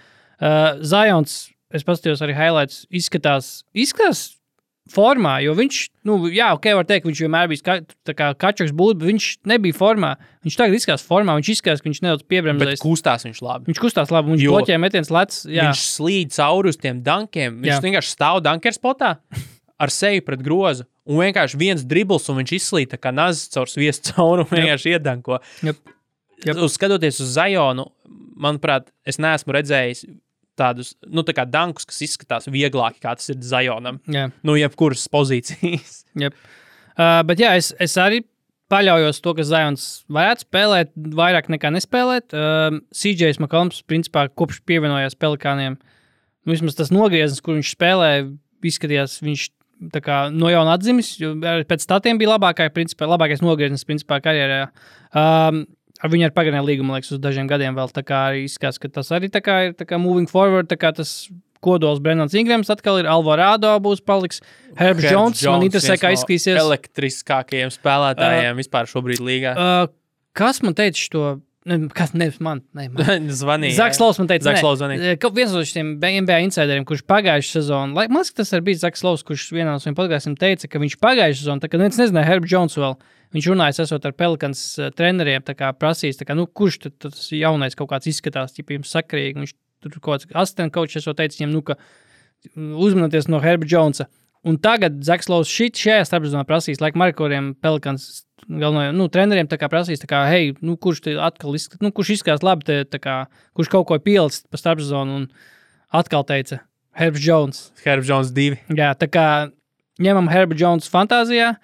Zions, es paskatījos arī highlights, izskatās formā, jo viņš, var teikt, ka viņš vienmēr bija kačaks būt, bet viņš nebija formā. Viņš tagad izskatās formā, viņš izskatās, ka viņš nedaudz piebremzēs.
Bet kustās viņš labi.
Viņš kustās labi, viņš bloķē metiens lec.
Viņš slīd cauri uz tiem dankiem. Viņš vienkārši stāv danker spotā ar seju pret grozu. Un vienkārši viens dribls, un viņš izslīd tā kā nazis caur sviestu cauri un vienkārši iedanko. Skatoties uz Zionu, manuprāt, es neesmu redzējis tādus, tā kā dankus, kas izskatās vieglāki, kā tas ir Zionam. Jebkuras pozīcijas.
Bet es arī paļaujos to, ka Zions varētu spēlēt, vairāk nekā nespēlēt. CJs McCollums, principā, kopš pievienojās Pelikāniem, vismaz tas nogrieznis, kur viņš spēlē, izskatījās, viņš tā kā no jauna atzimis, jo pēc statiem bija labākais nogrieznis, principā, karjerā. Ar viņu ar pagarināju līgumu, liekas, uz dažiem gadiem vēl tā kā arī izskatās, ka tas arī tā kā ir tā kā moving forward, tā kā tas kodols Brennans Ingrams atkal ir, Alvarado būs paliks, Herbs Jones, man interesē, kā izskatīsies.
Elektriskākajiem spēlētājiem vispār šobrīd līgā.
Kas man teica to? Man.
Zvanīja.
Zaks Lovs man teica,
zvanīja.
Viens no šiem NBA insideriem, kurš pagājušajā sezonā, man liekas, tas arī bija Zaks Lovs, kurš vienā no saviem podkastiem teica, ka viņš pagājušajā sezonā, tā kā neviens nezināja Herbs Jones vēl, viņš runājas esot ar Pelikans treneriem, tā kā prasīs, tā kā, kurš tas jaunais kaut kāds izskatās, ja jums sakarīgi, viņš tur kaut kāds asistent coach esot teicis viņam, ka uzmanieties no Herba Jonesa. Un tagad Zaks Lovs šajā starpsezonā prasīs, laik Markoriem Pelikans galvenajiem, treneriem tā kā prasīs, tā kā, hei, kurš te atkal izskatās, kurš izskatās labi, tā kā, kurš kaut ko pielicis pa starpsezonu, un atkal teica Herbs Jones.
Herbs Jones 2.
Jā, tā kā ņemam Herba Jones fantāzijā.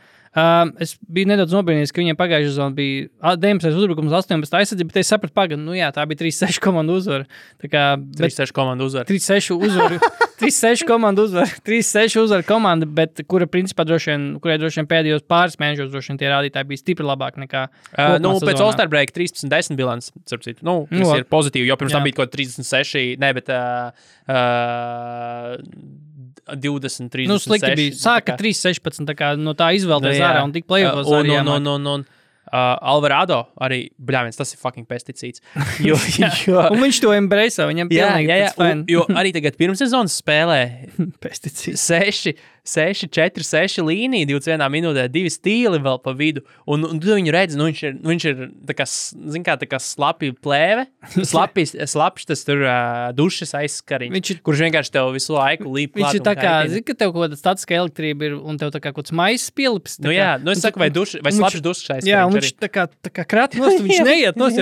Es biju nedaudz nobrīnījies, ka viņiem pagājušajā sezonā bija 19 uzbrukums, 18 aizsardzība, bet es sapratu pagadu, tā bija 3-6 komandu uzvara.
3-6 komandu uzvara.
3-6 uzvara. 3-6 komandu uzvara. 3-6 uzvara komanda, bet kurai droši vien pēdējos pāris mēnešos droši vien tie rādītāji bija stipri labāk nekā
pēc All-Star break 13-10 bilants, starp citu. Tas ir pozitīvi, jo pirms tam bija kaut 36, bet 20, 36.
Slikti bija. Sāka 3-16, tā kā no tā izvēlēties ārā un tik play-offos arī jāmāk.
Alvarado arī, tas ir fucking pesticīds.
Un viņš to embrace, viņam pilnīgi pēc fan.
Jo arī tagad pirmssezonas spēlē
pesticīds.
6-4-6 līnija, 21 minūtē, 2 stīli vēl pa vidu. Un tu viņu redzi, viņš ir tā kā slapi plēve, slapš tas tur dušas aizskariņš, kurš vienkārši tev visu laiku līp klāt.
Viņš ir tā kā, ka tev kaut kāda statiska elektrība ir un tev tā kā kaut kāds maizes pielips.
Es saku, vai slapš dušas aizskariņš.
Jā, un viņš tā kā krāt nost, viņš neiet nost.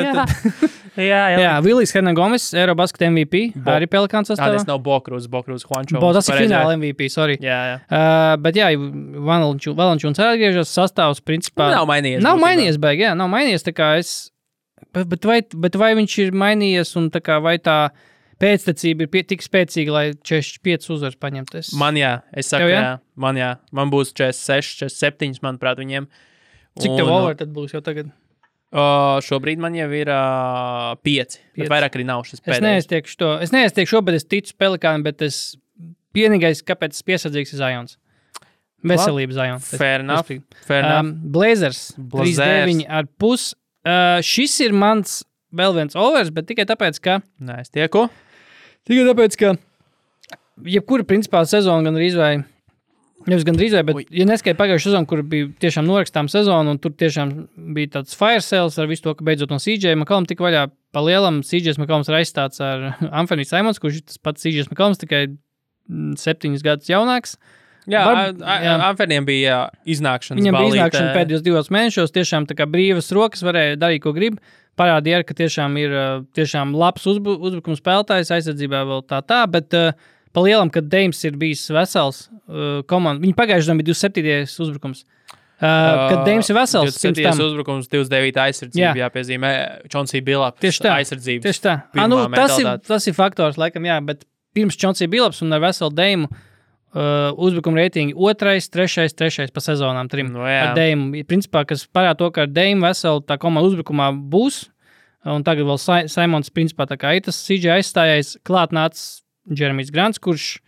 Jā, Vilijs Hernan-Gomes, Eurobasket MVP, arī Pelikāns sastāvā.
Tas nav Bokrūs Juancho.
Tas ir fināla MVP, sorry.
Jā.
Bet jā, Valančūns atgriežas, sastāvs principā...
Nav mainījies.
Nav mainījies, baigi, jā, nav mainījies, tā kā es... Bet vai viņš ir mainījies un tā kā vai tā pēctecība ir tik spēcīga, lai 45 uzvaras paņemtu?
Man es saku, man būs 46, 47, manuprāt, viņiem.
Cik tev over tad būs jau tagad?
Šobrīd man jau ir 5, bet vairāk arī nav šis pēdējais.
Es neaiztiekšu, bet es ticu Pelikānam, bet vienīgais, kāpēc es piesardzīgs ir Zions. Veselība Zions.
Fair enough.
Blazers 3-9,5. Šis ir mans vēl viens overs, bet tikai tāpēc, ka...
Nē, es tieku.
Tikai tāpēc, ka jebkura principā sezona gandrīz vai, bet ja neskaidri pagājušu sezonu, kur bija tiešām norakstām sezonu, un tur tiešām bija tāds fire sales ar visu to, ka beidzot no CJ McCollum tika vaļā pa lielam. CJ McCollums ir aizstāts ar Anthony Simons, kurš ir tas pats CJ McCollums, tikai 7 gadus jaunāks.
Jā, Anthonyam bija iznākšana.
Viņam bija iznākšana pēdējos 2 mēnešos, tiešām tā kā brīvas rokas varēja darīt, ko grib. Parādīja, ka tiešām ir tiešām labs uzbrukums spēlētājs, aizsardzībā vēl tā, bet pa lielam, kad Dames ir bijis vesels komanda, viņi pagājušajā bija 27. uzbrukums. Kad Dames ir vesels,
27. uzbrukums, 29. aizsardzība, jāpiezīmē, Chauncey Billups aizsardzības.
Tieši tā. Tas ir faktors, laikam, jā, bet pirms Chauncey Billups un ar veselu Dame uzbrukuma reitingi 2., 3. pa sezonām 3. Ar Dame. Principā, kas parāda to, ka ar Dame veselu tā komanda uzbrukumā būs, un tagad vēl Simons principā tā kā ir tas CJ aizstājais, klāt nācis Jeremijs Grants, kurš,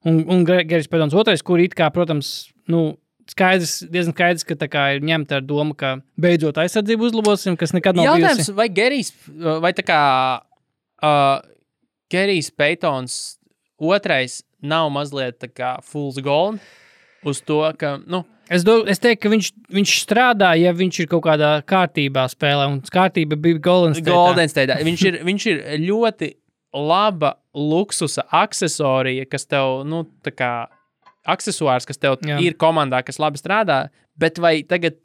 un Gerijs Pedons 2, kur it kā, protams, diezgan skaidrs, ka tā kā ir ņemta ar domu, ka beidzot aizsardzību uzlabosim, kas nekad nav bijusi.
Jautājums, vai Gerijs, vai tā kā Gerijs Pētons 2. nav mazliet tā kā fool's gold uz to, ka,
Es teiktu, ka viņš strādā, ja viņš ir kaut kādā kārtībā spēlē, un kārtība bija Golden
State. Viņš ir ļoti laba luksusa aksesorija, kas tev, tā kā aksesuārs, kas tev ir komandā, kas labi strādā, bet vai tagad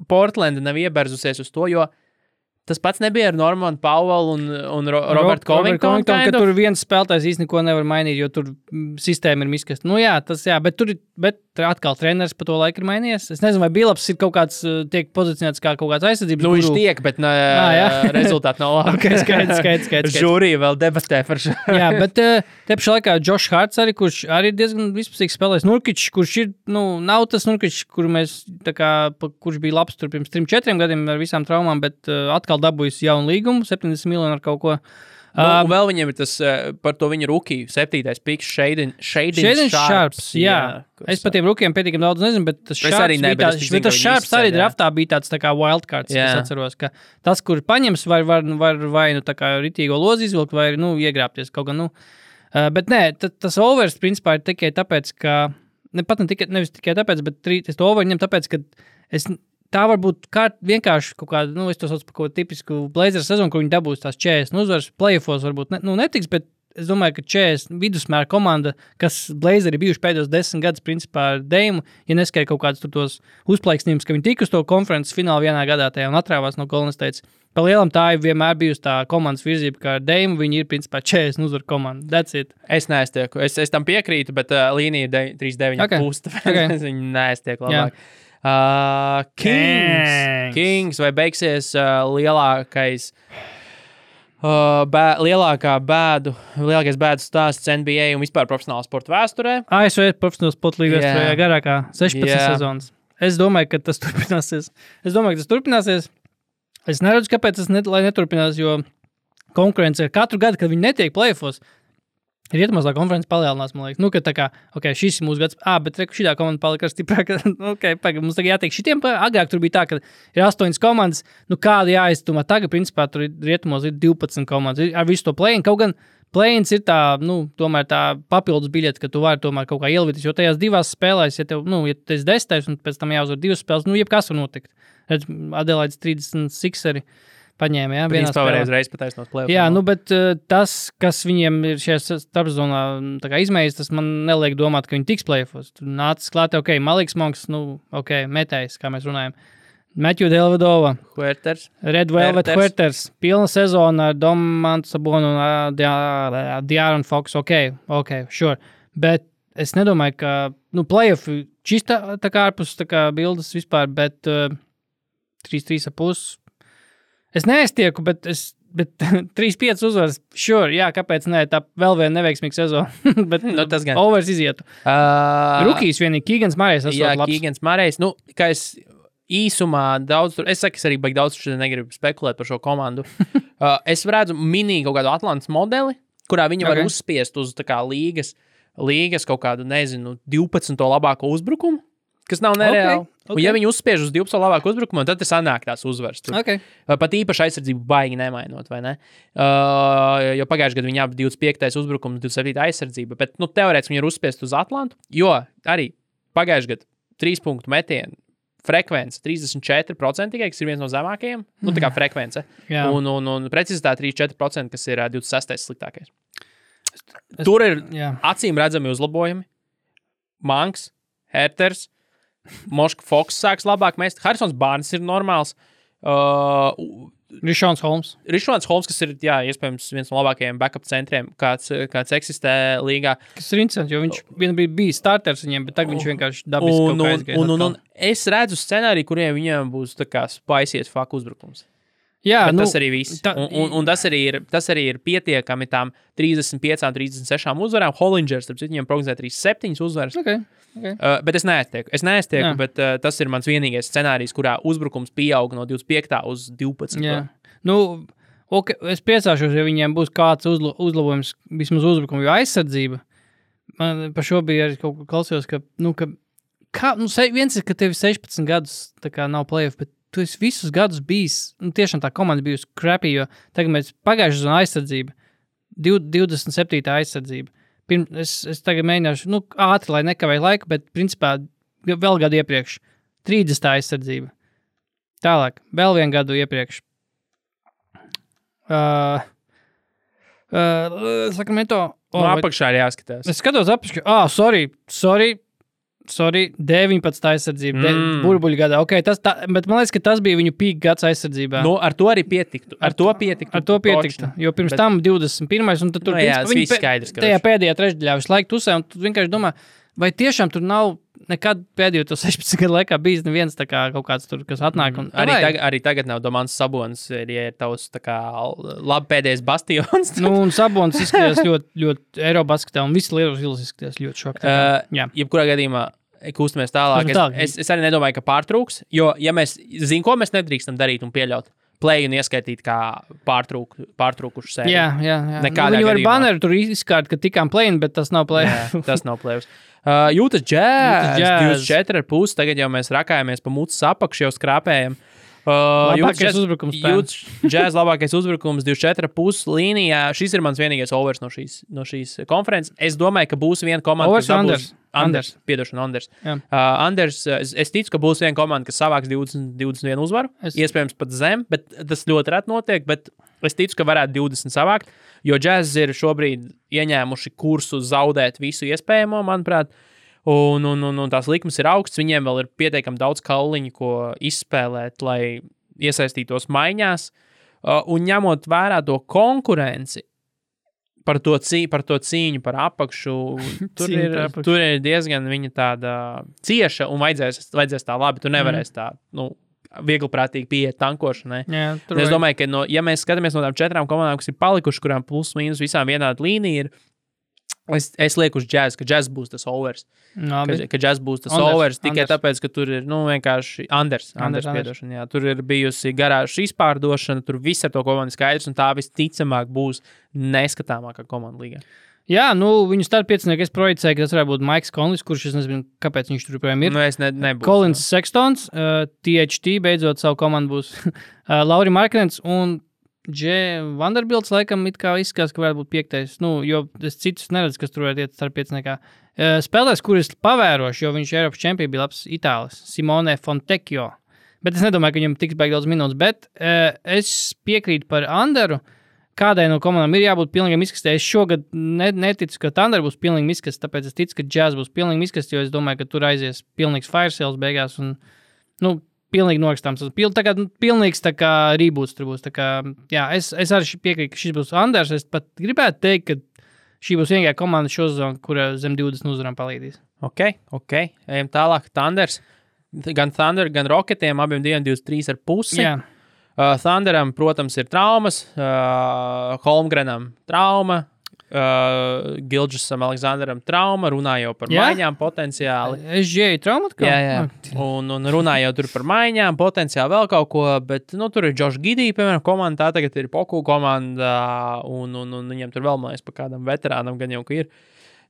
Portlanda nav ieberzusies uz to, jo tas pats nebija ar Normanu Powell un Robertu Covingtonu,
ka tur viens spēlētājs īsti neko nevar mainīt, jo tur sistēma ir miskasta. Bet atkal treneris pa to laiku ir mainījies. Es nezinu, vai Billups ir kaut kāds, tiek pozicionēts kā kaut kāds aizsardzības
viņš tiek, bet rezultāti nav labi.
Okay, skaidrs.
Žūrija vēl debatē par šo.
Jā, bet te pašā laikā Josh Harts arī, kurš arī diezgan vispusīgs spēlēs. Nurkičs, kurš ir, nav tas Nurkičs, kurš bija labs tur pirms 3-4 gadiem ar visām traumām, bet atkal dabūjis jaunu līgumu, 70 miljonu ar kaut ko.
Vēl viņam ir tas par to viņa rukiju, 7. piks, Shaden Sharps.
Jā. Es par tiem rukijiem pietiekami daudz nezinu, bet tas Sharps arī draftā bija tāds tā kā wildcards, es atceros, ka tas, kur paņems, var vai tā kā ritīgo lozi izvilkt, vai iegrāpties kaut gan, Bet nē, tas overs principā ir tikai tāpēc, ka, nevis tikai tāpēc, bet es to over ņem tāpēc, ka tā var būt vienkārši kaut kāda, es to saucu par kaut tipisku Blazers sezonu, kur viņi dabūs tās 40 uzvaras, playoffos varbūt netiks, bet es domāju, ka 40 vidusmēra komanda, kas Blazeri bijuši pēdējos 10 gadus principā ar Dame, ja neskaidri kaut kādus tur tos uzplaiksnījumus, ka viņi tika uz to konferences finālu vienā gadā tajā un atrāvās no Golden State. Pa lielam tā ir vienmēr bijusi tā komandas virzība, kā ar Dame, viņi ir principā 40 uzvaru komanda. That's it.
Es neaiztieku. Es tam piekrītu, bet līnija ir 3-9,5. Okay. Viņi neaiztiek labāk.
Yeah.
Kings vai beigsies lielākais lielākais bēdu stāsts NBA un vispār profesionāla sporta vēsturē?
ASV profesionāla sporta līga vēsturē garākā 16 sezonas. Es domāju, ka tas turpināsies. Es neredzu, kāpēc tas neturpinās, jo konkurence ir katru gadu, kad viņi netiek playoffos. Rietumāslā konferences palielinās, man liekas. Ka tā kā, šis ir mūsu gads. Bet šitā komanda palika stiprāka. Mums tagad jātiek šitiem. Agrāk tur bija tā, ka ir 8 komandas. Kāda jāiztumā. Tagad, principā, tur rietumos ir 12 komandas. Ar visu to play-in. Kaut gan play-ins ir tā, tomēr tā papildus biļete, ka tu vari tomēr kaut kā ielvities. Jo tajās divās spēlēs, ja tev, ja tu esi 10. un pēc tam jāuzvar 2 spēles, jebkas var notikt. Redz, Adelaides 36 arī. Paņēma, jā, vienā spēlē.
Reiz pataisnos play-off.
Jā, bet tas, kas viņiem ir šajā starpzonā izmēģis, tas man neliek domāt, ka viņi tiks play-offos. Tur nācis klāt, Maliks Monks, metējs, kā mēs runājam. Matthew Dellavedova. Red Velvet Huerters. Pilna sezona ar Domantu Sabonu un De'Aaron Fox. Sure. Bet es nedomāju, ka, play-offi čista tā kā ārpus tā kā bildes vispār, bet 3-3,5. Es neaiztieku, bet 3-5 uzvaras, sure, jā, kāpēc ne, tā vēl viena neveiksmīga sezona, bet
tas gan.
Overs izietu. Rukijs vienīgi, Keegans Murray's esot labs.
Jā, Keegans Murray's, kā es īsumā daudz tur, es saku, es arī baigi daudz tur negribu spekulēt par šo komandu. Es redzu mini kaut kādu Atlantas modeli, kurā viņi var uzspiest uz tā kā līgas kaut kādu, 12. labāko uzbrukumu, kas nav nereāli. Okay. Un ja viņi uzspiež uz 12. labāko uzbrukumu, tad sanāk tās uzvaras. Pat īpaši aizsardzību baigi nemainot, vai ne? Jo pagājušajā gadā viņi 25. uzbrukums, 27. aizsardzība, bet, teorētiski viņi ir uzspiest uz Atlantu, jo arī pagājušajā gadā 3 punktu metienu frekvence 34%, kas ir viens no zemākajiem, tā kā frekvence, un precizitāte 34%, kas ir 26. sliktākais. Tur ir acīm redzami uzlabojumi. Manks, Herters, Moška Foks sāks labāk mest. Harrisons Barnes ir normāls.
Rišons Holmes,
kas ir, iespējams, viens no labākajiem backup centriem, kāds eksistē līgā.
Kas ir interesanti, jo viņš vienbrīd bija starters viņiem, bet tagad viņš vienkārši dabiski kaut kā aizgāja.
Un es redzu scenāriju, kuriem viņiem būs tā kā spiciest fuck uzbrukums.
Jā,
tas arī viss. Un tas arī ir pietiekami tām 35, 36 uzvarām. Hollingers, starp citu, viņam prognozē 37 uzvaras.
Okay.
Bet es neaiztieku, bet tas ir mans vienīgais scenārijs, kurā uzbrukums pieaug no 25. uz 12.
Jā. Es priecāšos, ja viņiem būs kāds uzlabojums vismaz uzbrukumu, jo aizsardzība. Man par šo bija arī kaut ko klausījos, viens ir, ka tev 16 gadus tā kā nav play-off, bet tu esi visus gadus bijis, tiešām tā komanda bijusi crappy, jo tagad mēs pagājušajā sezonā aizsardzība, 27. aizsardzība. Es tagad mēģināšu, ātri, lai nekavēju laiku, bet principā vēl gadu iepriekš 30. aizsardzība. Tālāk, vēl vienu gadu iepriekš. Sakramento.
Apakšā ir jāskatās.
Es skatos apakšā. Sorry, 19. aizsardzība, burbuļu gadā. Okay, bet man liekas, ka tas bija viņu peak gads aizsardzībā.
Ar to arī pietiktu. Ar to pietiktu. Jo pirms tam 21. un tad tur viņi skaidrs,
tajā pēdējā trešdaļā visu laiku tusē, un tu vienkārši domā, vai tiešām tur nav nekad pēdējo to 16 gadu laikā bijis neviens tā kā kaut kāds tur, kas atnāk.
Arī tagad nav Domants Sabonis, ja ir tavs tā kā labi pēdējais bastions.
Un Sabonis izskatās ļoti Eirobasketā, un visi Lietuvas izskatās ļoti šokti.
Jebkurā gadījumā kustamies tālāk. Es arī nedomāju, ka pārtrūks, jo, ja mēs zinām, ko mēs nedrīkstam darīt un pieļaut, play un ieskaitīt kā pārtrūkušu sēriju.
Jā.
Nekādā
viņi var
gadījumā.
baneru tur izskārt, ka tikām play, bet tas nav play.
Jā, tas nav play. Utah Jazz 24,5, tagad jau mēs rakājamies pa mucas apakšu, jau skrāpējam.
Labākais uzbrukums.
Jazz labākais uzbrukums 24,5 līnijā. Šis ir mans vienīgais overs no šīs konferences. Es domāju, ka būs viena komanda,
overs
Anders. Es ticu, ka būs viena komanda, kas savāks 21 uzvaru. Iespējams pat zem, bet tas ļoti reti notiek, bet es ticu, ka varētu 20 savākt, jo Jazz ir šobrīd ieņēmuši kursu zaudēt visu iespējamo, manuprāt. Un tās likmes ir augsts, viņiem vēl ir pietiekami daudz kauliņu, ko izspēlēt, lai iesaistītos maiņās. Un ņemot vērā to konkurenci par to cīņu par apakšu, tur ir diezgan viņa tāda cieša un vajadzēs tā labi. Tu nevarēs tā, viegliprātīgi pieiet tankošanai.
Jā,
es domāju, ka ja mēs skatāmies no tām 4 komandām, kas ir palikuši, kurām plus mīnus visām vienāda līnija ir, es lieku uz Jazz, ka Jazz būs tas overs. Ka Jazz būs tas overs tikai tāpēc, ka tur ir, vienkārši Anders piedošana, jā. Tur ir bijusi garāžas izpārdošana, tur viss ar to komandu skaidrs, un tā visticamāk būs neskatāmākā komanda līgā.
Jā, viņu startpiecinieki es projicēju, ka tas varētu būt Maiks Konlis, kurš es nezinu, kāpēc viņš tur joprojām ir.
Es nebūs.
Collins Sextons, THT beidzot savu komandu būs Lauri Marknens un Vanderbilts laikam it kā izskatās, ka varētu būt 5. Jo es citus neredzu, kas tur varētu iet starppieciniekā. Spēlēs, kuris pavēroši, jo viņš Eiropas čempions bija labs Itālis, Simone Fontecchio. Bet es nedomāju, ka viņam tiks baigi daudz minūtes, bet es piekrītu par Anderu. Kādai no komandām ir jābūt pilnīgam izkastē. Es šogad neticu, ka Thunder būs pilnīgi izkastē, tāpēc es ticu, ka Jazz būs pilnīgi izkastē, jo es domāju, ka tur aizies pilnīgs fire sales beigās un, pilnīgi norakstāms. Pilnīgs tā kā reboots tur būs. Tā kā, jā, es arī piekrītu, ka šis būs Anders. Es pat gribētu teikt, ka šī būs vienīgā komanda šo sezonu, kura zem 20 uzvarām palīdīs.
Ok. Ejam tālāk. Thunders. Gan Thunder, gan Rocketiem abiem 23,5.
Jā.
Thunderam, protams, ir traumas. Holmgrenam trauma. Gilģisam, Aleksandram trauma, runājot par maiņām potenciāli.
SGA trauma atkal?
Jā. Un runājot tur par maiņām, potenciāli vēl kaut ko, bet, tur ir Josh Giddey, piemēram, komanda, tā tagad ir Poku komanda, un viņam tur vēl, man liekas, pa kādam veterānam gan jau, ka ir.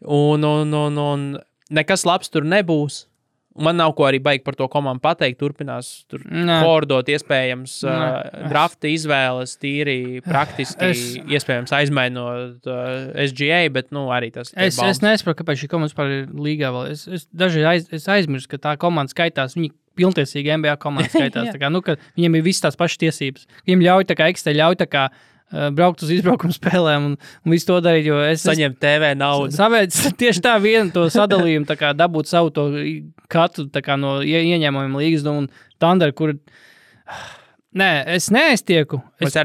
Un nekas labs tur nebūs. Man nav ko arī baigi par to komandu pateikt. Turpinās tur fordot, iespējams, drafta izvēles, tīri praktiski, iespējams, aizmainot SGA, bet, arī tas.
Es nesaprotu, kāpēc šī komanda vispār ir līgā vēl. Es dažreiz aizmirstu, ka tā komanda skaitās, viņi pilntiesīgi NBA komanda skaitās. Tā kā, ka viņiem ir visas tās pašas tiesības. Viņiem ļauj tā kā braukt uz izbraukumu spēlēm un visu to darīt, jo es
saņemt TV naudu.
Tieši tā vienu to sadalījumu, tā kā dabūt savu to katru tā kā no ieņēmumiem līgas un Thunder, kur... Nē, es neaiztieku. Es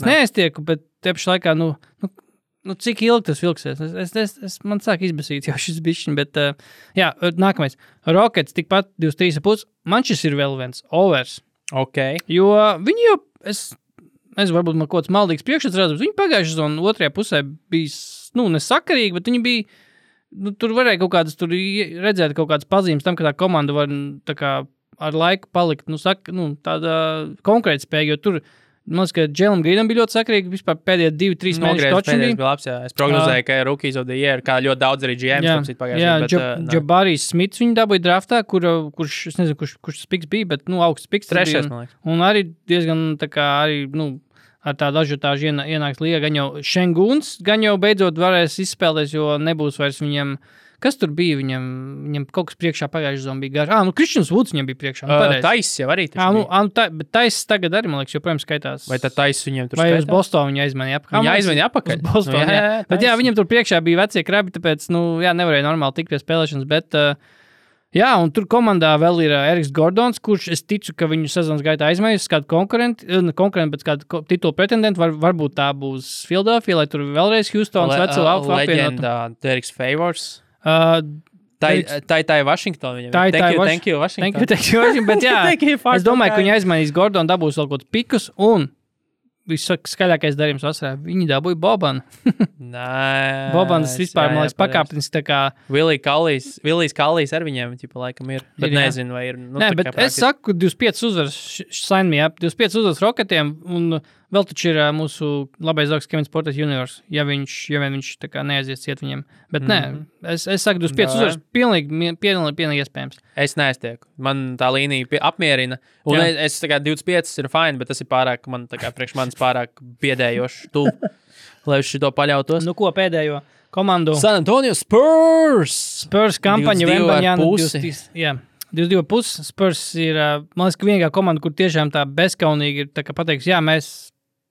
neaiztieku, bet te pašā laikā, cik ilgi tas vilksies? Man sāk izbasīt jau šis bišķiņ, bet, nākamais. Rockets tikpat 23,5. Man šis ir vēl viens overs.
Ok.
Jo viņi jau... Es varbūt man kaut kāds maldīgs priekšstats redzams. Viņi pagājušajā sezonā otrajā pusē bija, nesakarīgi, bet viņi bija, tur varēja kaut kādas, tur redzēt kaut kādas pazīmes tam, ka tā komanda var tā kā ar laiku palikt, tāda konkrēta spēja, jo tur, man liekas, ka Džēlam Grīnam bija ļoti sakarīgi, vispār pēdējie 2-3 mēneši točiem bija.
Labs, jā. Es prognozēju, ka Rookies of the Year, kā ļoti daudz arī GMs pagājušajā.
Jabarijs Smits viņu dabūja draftā, kurš, es nezinu, kurš tas piks bija, bet, augsts piks.
Trešais, man liekas.
Un arī diezgan, tā kā, arī, ar tādu ažiotāžu ienāks līgā, gan jau Šenguns, gan jau beidzot varēs izspēlēties, jo nebūs vairs viņam... Kas tur bija? Viņam kaut kas priekšā pagājušajā sezonā bija garš. Kristians Vuds viņam bija priekšā.
Tais jau arī taču bija.
Bet Tais tagad arī, man liekas, joprojām skaitās.
Vai tad Tais viņam tur
skaitās? Vai uz Bostonu viņa aizmainīja apakaļ?
Viņa aizmainīja apakaļ?
Uz Bostonu, jā. Bet jā, viņam tur priekšā bija vecie krabi, tāpēc, nevarēja normāli tikt pie spēlēšanas, bet... Jā, un tur komandā vēl ir Eriks Gordons, kurš es ticu, ka viņu sezonas gaitā aizmainīs kādu konkurentu, bet kādu titulu pretendentu, varbūt tā būs Philadelphia, lai tur vēlreiz Houstons veco apvienotu.
Leģenda Derrick Favors. Tā ir Washington. Thank you, Washington.
Thank you, Washington, bet jā, es domāju, ka viņi aizmainīs Gordonu, dabūs vēl kaut pikus, un viskaļākais darījums vasarā. Viņi dabūja Bobanu.
Nē.
Bobans vispār, man liekas, pakāpnis tā kā...
Willijs Kallijs ar viņiem, laikam ir. Bet nezinu, vai ir...
Nē, bet es saku, 25 uzvaras, sign me up, 25 uzvaras Rocketiem, un vēl taču ir mūsu labais zauks Kevins Porter Juniors, ja viņš tā kā neaizies ciet viņiem. Bet nē, es saku, 25 uzvaras pilnīgi iespējams.
Es neaiztieku. Man tā līnija apmierina. Un es tā kā 25 ir fine, bet tas ir pārāk, man tā kā priekš manis pārāk biedējoši tu, lai uz šito paļautos.
Ko pēdējo komandu?
San Antonio Spurs!
Spurs kampaņa Vembaņāna 22,5. Spurs ir, man liekas, ka vienīgā komanda, kur tiešām tā bezkaunīgi ir tā kā pateiks,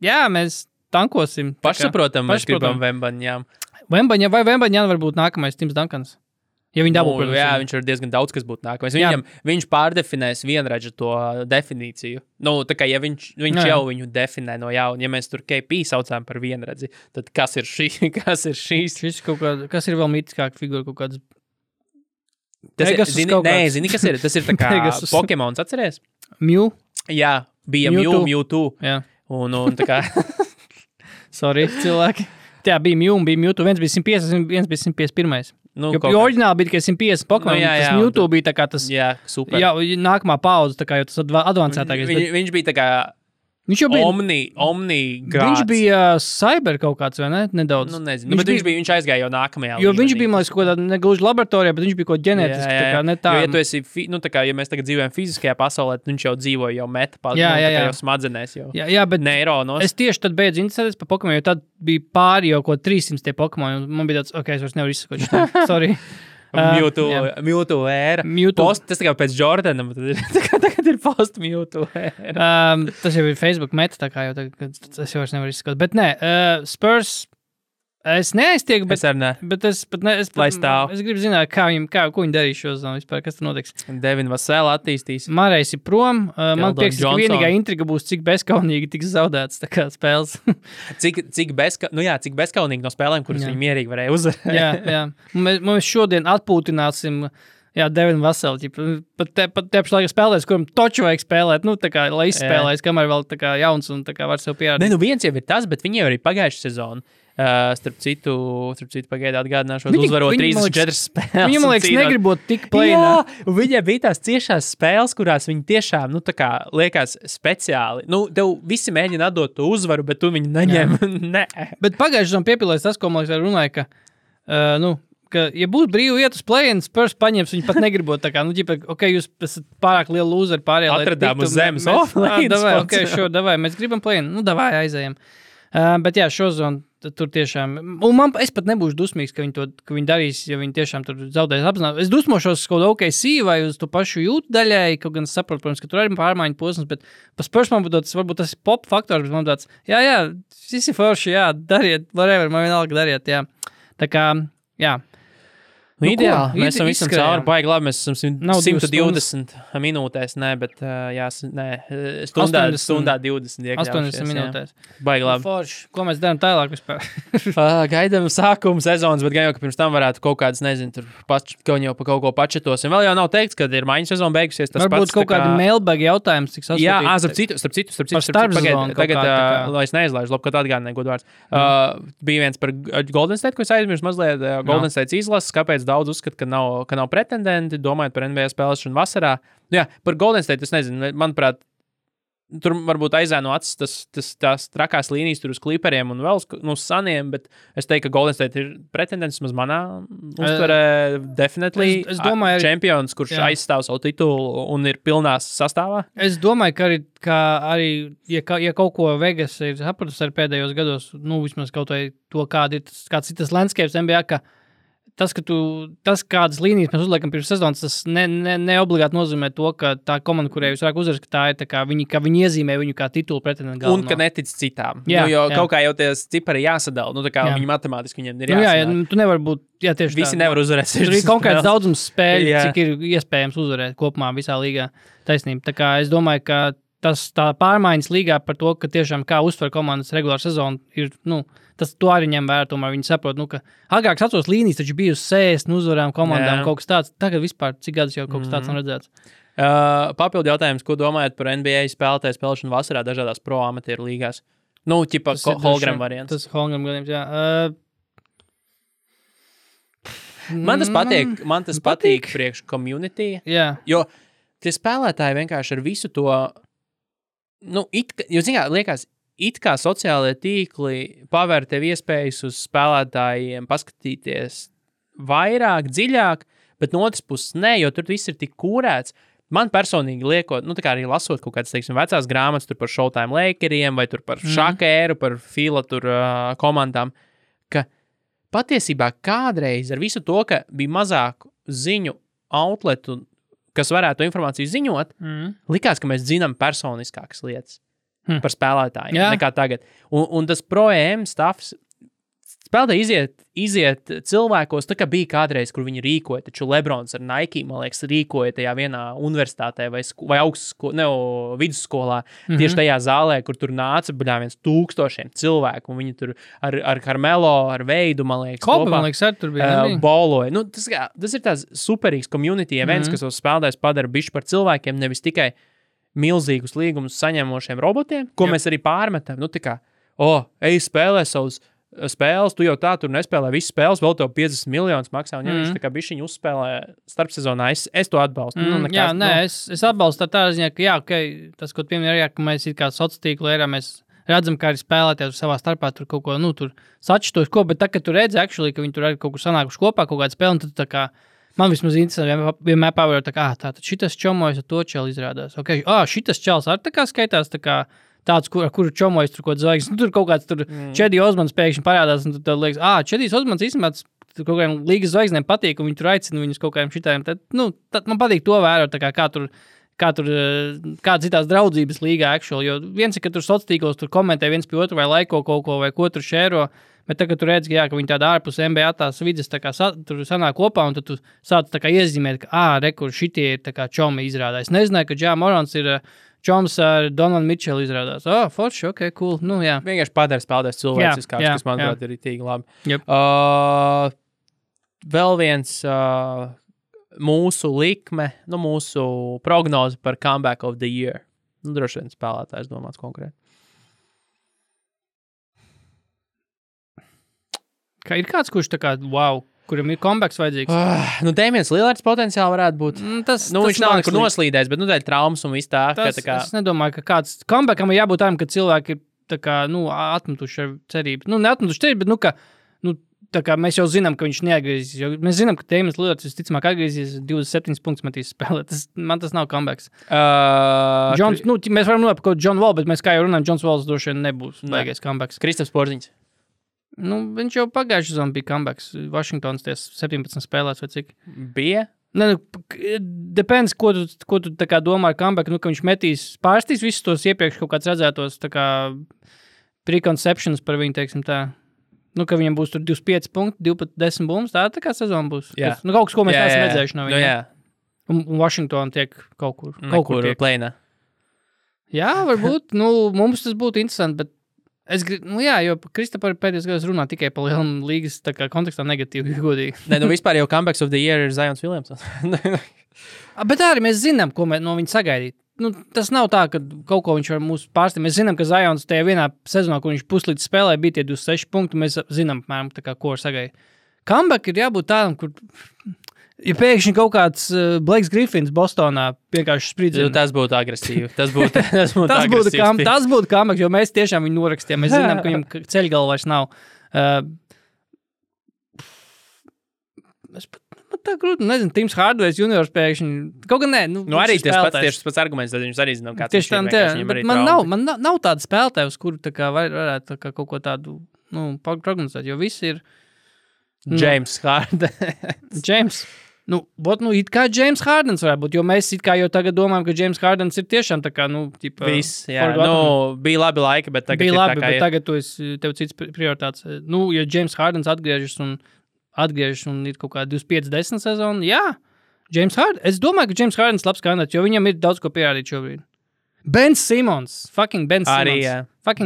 mēs tankosim.
Pašsaprotam, mēs gribam Vembaņām.
Vembaņāna varbūt nākamais Tims Duncans. Ja viņi dabū, protams. Jā,
viņš ir diezgan daudz, kas būtu nākamais. Viņš pārdefinēs vienradžu to definīciju. Tā kā, ja viņš jau viņu definē no jauna, ja mēs tur KP saucām par vienradzi, tad kas ir šīs?
Kas ir vēl mītiskāka figūra kaut kāds?
Zini, kas ir? Tas ir tā kā Pokemons, atceries?
Mew?
Jā, bija Mewtwo.
Jā.
Un tā kā...
Sorry, cilvēki. Jā, bija Mewtwo. Viens bija 150, viens bija 151. Jo oriģināli bija tikai 150 Pokemon, tas Mewtwo bija tā kā tas... Jā,
super.
Jā, nākamā paudze, tā kā jau tas advancētākais.
Viņš bija tā kā... Viņš jau bija Omni grāds.
Viņš bija cyber kaut kāds, vai ne? Nedaudz.
Nezinu, bet viņš aizgāja jau nākamajā līmenī.
Jo viņš bija, man liekas, kaut kādā negluži laboratorijā, bet viņš bija kaut ģenētiski, tā kā ne tā.
Jo, ja tu esi, tā kā, ja mēs tagad dzīvojam fiziskajā pasaulē, viņš jau dzīvoja jau meta jau smadzenēs jau.
Jā, bet
neironos.
Es tieši tad beidzu interesēties par Pokemon, jo tad bija pāri jau kaut 300 tie Pokemon, un man bija tāds, es vairs nevaru izsakot šitā. Sorry.
Mewtwo ēra. Tas tā kā pēc Jordanam, tagad ir post Mewtwo ēra.
Tas jau ir Facebook meta, tā kā jau tas jau vairs nevar izskatīt. Bet nē, Spurs, Es neaiztieku, bet
Es arī ne.
Bet es pat ne,
Lai stāv.
Es gribu zināt, ko viņi darīs šo zonu vispār, kas tur notiks.
Devin Vasela attīstīs.
Marais ir prom. Man
Keldon
liekas, ka
Johnson.
vienīgā intriga būs, cik bezkaunīgi tiks zaudēts tā kā spēles.
Cik bezkaunīgi no spēlēm, kuras viņi mierīgi varēja uzvarēt.
jā. Mēs šodien atpūtināsim Devinu Vaselu. Pat tepš laikā spēlēs, kuram toču vajag spēlēt, tā kā, lai izspēlēs, kamēr vēl tā kā jauns un tā kā var sev pierādīt.
Ne, viens jau ir tas, bet viņi jau arī pagājuši sezonu. Starp citu pagaidā atgādināšos, uzvarot 34 spēles.
Viņam, liekas, negribot tik plēnā.
Jā, un viņiem bija tās ciešās spēles, kurās viņi tiešām, tā kā liekas speciāli. Tev visi mēģina atdot to uzvaru, bet tu viņu neņem. Ne.
Bet pagājuši tam piepilēs tas, ko man liekas runāja, ka, ja būs brīvi iet uz play-in, Spurs paņems, viņi pat negribot tā kā, jūs esat pārāk liela lūzeri pārējā.
Atradām uz zemes.
Davai, mēs gribam play-in. Davai, aizējam. Bet jā, šo zonu tur tiešām, un es pat nebūšu dusmīgs, ka viņi darīs, ja viņi tiešām tur zaudēs apzināt. Es dusmošos kaut kādu OKC vai uz to pašu jūtu daļai, kaut gan es saprotu, protams, ka tur arī pārmaiņu posms, bet pa Spurs man būtu varbūt tas pop faktors, bet man tāds, jā, visi forši, dariet, whatever, man vienalga dariet, jā. Tā kā, jā.
Ideāli, mēs esam visam cauri, baigi labi, mēs esam 120 minūtēs, stundā 20 iekļaušies.
80 minūtēs.
Baigi labi.
Forši, ko mēs darām tālāk vispār?
Gaidām sākumu sezonas, bet gan jau, ka pirms tam varētu kaut kādas, nezinu, tur kaut jau pa kaut ko pačetos. Un vēl jau nav teikts, kad ir maiņu sezona beigusies.
Varbūt kaut kādi mailbag jautājums, cik sasūtīt.
Jā, starp citu, tagad, lai es neizlaižu, labi, kad atgādināju godvārds. Bija viens par Golden State, ko es aizmirsu mazliet. Golden State izlases, kāpēc daudz uzskata, ka nav pretendenti, domājot par NBA spēlēšanu vasarā. Jā, par Golden State, es nezinu, manuprāt, tur varbūt aizēno acis tās trakās līnijas tur uz Clipperiem un vēl uz Saniem, bet es teiktu, ka Golden State ir pretendents, maz manā uztverē definitely
es domāju,
čempions, kurš aizstāv savu titulu un ir pilnās sastāvā.
Es domāju, ka arī ja kaut ko Vegas ir sapratusi ar pēdējos gados, vismaz kaut vai to, kāds ir tas landscapes NBA, ka tas, kādas līnijas mēs uzliekam pirms sezonas, tas ne obligāti nozīmē to, ka tā komanda, kurai jūs vairāk uzvaras, ka tā ir tā kā ka viņi iezīmē viņu kā titulu pretendentu galveno.
Un ka netic citām. Kaut kā jau tie cipari jāsadala, tā kā viņi matemātiski viņiem ir jāsadala.
Tu nevar būt, tieši
visi nevar uzvarēt.
Tur ir konkrēts daudzums spēļu, cik ir iespējams uzvarēt kopumā visā līgā. Taisnība. Tā kā es domāju, ka tā pārmaiņas līgā par to, ka tiešām kā uztver komandas regulāru sezonu ir, to arī ņem vērā, tomēr viņi saprot, ka agrāk atceros līnijas, taču bija uz 60 uzvarām komandām, kaut kas tāds. Tagad vispār, cik gadus jau kaut kas tāds nav redzēts.
Papildu jautājums, ko domājat par NBA spēlētāju spēlēšanu vasarā dažādās pro amatieru līgās? Ķipa Holgram variants.
Tas Holgram gadījums, jā.
Man tas patīk priekš community, jo tie spēlētāji vienkārši ar visu to, liekas, it kā sociālajie tīkli pavēr tev iespējas uz spēlētājiem paskatīties vairāk, dziļāk, bet no otras puses nē, jo tur viss ir tik kūrēts. Man personīgi liekot, tā kā arī lasot kaut kādas, vecās grāmatas tur par Showtime Lakeriem vai tur par šakēru, par Fila tur komandām, ka patiesībā kādreiz ar visu to, ka bija mazāk ziņu outletu, kas varētu to informāciju ziņot, likās, ka mēs zinām personiskākas lietas par spēlētājiem nekā tagad. Un tas pro-EM stuffs spēlētāji iziet cilvēkos, tā kā bija kādreiz, kur viņi rīkoja, taču Lebrons ar Nike, man liekas, rīkoja tajā vienā universitātē vai vidusskolā, tieši tajā zālē, kur tur nāca viens 1000 cilvēku, un viņi tur ar Carmelo, ar Veidu, man liekas,
kopā, man liekas, ar tur bija
boloja. Tas ir tās superīgs community events, kas tos spēlētājs padara bišķi par cilvēkiem, nevis tikai milzīgus līgumus saņemošiem robotiem, ko mēs arī pārmetam. Ej spēlē savus spēles, tu jau tā tur nespēlē visas spēles, vēl tev 50 miljonus maksā, un ja viņš tā kā bišķiņu uzspēlē starpsezonā, es to atbalstu.
Es atbalstu tā ziņā, ka tas, ko pieminēja, ka mēs ir kā sociālo tīklu erā, mēs redzam, kā arī spēlēties savā starpā tur kaut ko, tur sačtos ko, bet tā, ka tu redzi, ka viņi tur arī kaut kur sanākuši kopā, kaut kādu spēli, un tad tā kā man vismaz interesanti, vienmēr pavērot, tātad šitas čomojas ar to čeli izrādās. Šitas čels arī tā kā skaitās, tā kā tāds, ar kuru čomojas tur kaut zvaigznes. Tur kaut kāds tur Čedi Osmans pēkšņi parādās, un tad liekas, Čedijs Osmans īstenībā kaut kādiem līgas zvaigznēm patīk, un viņi tur aicina viņus kaut kādiem šitājiem. Tad man patīk to vērot, tā kā tur kā citās draudzības līgā actually, jo viens ir, ka tur sociālos tur komentē viens pie otru vai laiko kaut ko vai ko tur šēro, bet tagad tu redz, ka viņi tāda ārpus NBA tās vidas tā kā tur sanāk kopā un tad tu sāc tā kā iezīmēt, ka rekur šitie ir tā kā čomi izrādā. Es nezināju, ka Ja Morants ir čoms ar Donovan Mitchell izrādās. Forši, ok, cool. Nu, jā.
Vienkārši padara spēlētājs cilvēciskāks, kas, manuprāt, ir ritīgi labi.
Yep.
Vēl viens mūsu likme, mūsu prognoze par comeback of the year. Droši vien spēlētājs domāts konkrēti.
Kā ir kāds, kurš tā kā, wow, kuram ir comebacks vajadzīgs?
Damians Lillards potenciāli varētu būt.
Tas
viņš nav nekur noslīdējis, bet tā ir traumas un viss tā.
Es nedomāju, ka kāds comebackam ir jābūt tādam, ka cilvēki ir tā kā, atmetuši ar cerību. Neatmetuši cerību, bet, tā kā mēs jau zinām, ka viņš neatgriezīsies. Mēs zinām, ka Damians Lillards visticamāk atgriezīsies 27 punktus metīs spēlē. Man tas nav comebacks. Mēs varam runāt par John Wall, bet mēs kā jau runājam, Johns Walls droši vien nebūs baigais comebacks.
Kristaps Porziņš.
Viņš jau pagājuši sezonu bija comebacks. Washingtons 17 spēlēts vai cik?
Bija?
Depends, ko tu tā kā domā ar comeback, ka viņš pārstīs visus tos iepriekš kaut kāds redzētos tā kā preconceptions par viņu, teiksim tā. Ka viņam būs tur 25 punkti, 10 bumbas, tā kā sezona būs.
Jā.
Kaut kas, ko mēs esam redzējuši no viņa.
Jā.
Un Washington tiek kaut kur tiek.
Plēnā.
Jā, varbūt. Mums tas būtu interesanti, bet es gribu, jo Kristapar pēdējos gados runā tikai par lielām līgas tā kā kontekstā negatīvi, godīgi.
Vispār jau comebacks of the year ir Zions Williamsons.
Bet arī mēs zinām, ko no viņa sagaidīt. Tas nav tā, ka kaut ko viņš var mūs pārstīt. Mēs zinām, ka Zions tajā vienā sezonā, kur viņš puslīdz spēlē, bija tie 26 punkti, mēs zinām, apmēram, tā kā, ko var sagaidīt. Comeback ir jābūt tādam, kur... Ja pēkšņi kaut kāds Blakes Griffins Bostonā vienkārši spridzina.
Tas būtu agresīvi. Tas būtu
comeback, jo mēs tiešām viņu norakstījām. Mēs zinām, ka viņam ceļgala vairs nav. Es pat tā grūti, nezinu, Tims Hardaway juniors pēkšņi. Kaut gan nē.
Arī tas pats arguments, tad viņš arī zinām, kāds
viņš ir. Bet man nav tāda spēlētāja, uz kuru tā kā varētu tā kā kaut ko tādu prognozēt, jo visi ir...
James Hardens.
It kā James Hardens varētu būt, jo mēs it kā jau tagad domājam, ka James Hardens ir tiešām tā kā,
viss, jā, bija labi laika, bet tagad
bija labi, bet tagad tev cits prioritāts. Ja James Hardens atgriežas un ir kaut kā 25-10 sezonu, jā, James Hardens, es domāju, ka James Hardens labs kandidāts, jo viņam ir daudz ko pierādīt šobrīd. Ben Simmons.
Arī, jā.
Bet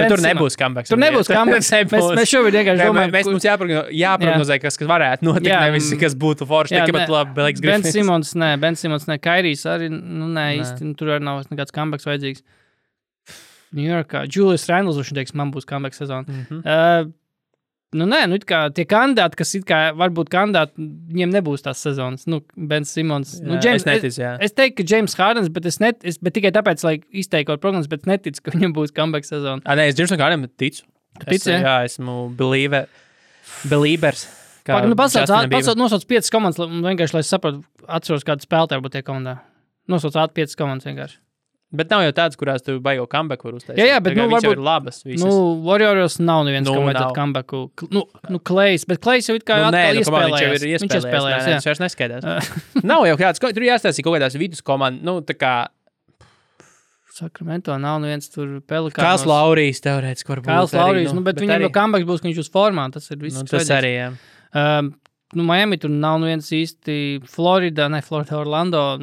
tur nebūs comebacks.
Tur nebūs comebacks. Mēs šobrīd vienkārši domājam.
Mums jāprognozē, kas varētu notikt, nevis kas būtu forši. Tikai pat labi, Blakes Griffins.
Ben Simmons, Kairijs arī, īsti, tur arī nav nekāds comebacks vajadzīgs. New Yorkā. Julius Randles, viņš teiks, man būs comeback sezona. It kā tie kandidāti, kas it kā varbūt kandidāti, viņiem nebūs tās sezonas. Ben Simmons.
James,
es teiktu, ka James Hardens, bet tikai tāpēc, lai izteiktu prognozes, bet neticu, ka viņam būs comeback sezona.
Es Jamesam Hardensam ticu. Jā, esmu believers.
Nosauc 5 komandas, vienkārši, lai es sapratu, atceros, kādu spēlētāju būtu tie komandā. Nosauc 5 komandas vienkārši.
Bet nav jau tāds, kurās tu baigo comeback var uztaisīt.
Jā, bet
varbūt ir labas visas.
Warriors nav neviens, kam vajadzētu comebacku. Klejs, bet Klejs jau it kā
iespēlējās. Viņš vairs neskaidās. Nav jau kāds, tur jāstāsī kaut kādās vidus komandas, tā kā...
Sacramento nav neviens tur Pelikānos.
Kāls Laurijs teorētiski varbūt.
Kāls Laurijs, bet viņam jau comeback būs, ka viņš uz formā, tas ir viss.
Tas arī, jā.
Miami tur nav neviens īsti Florida, Orlando.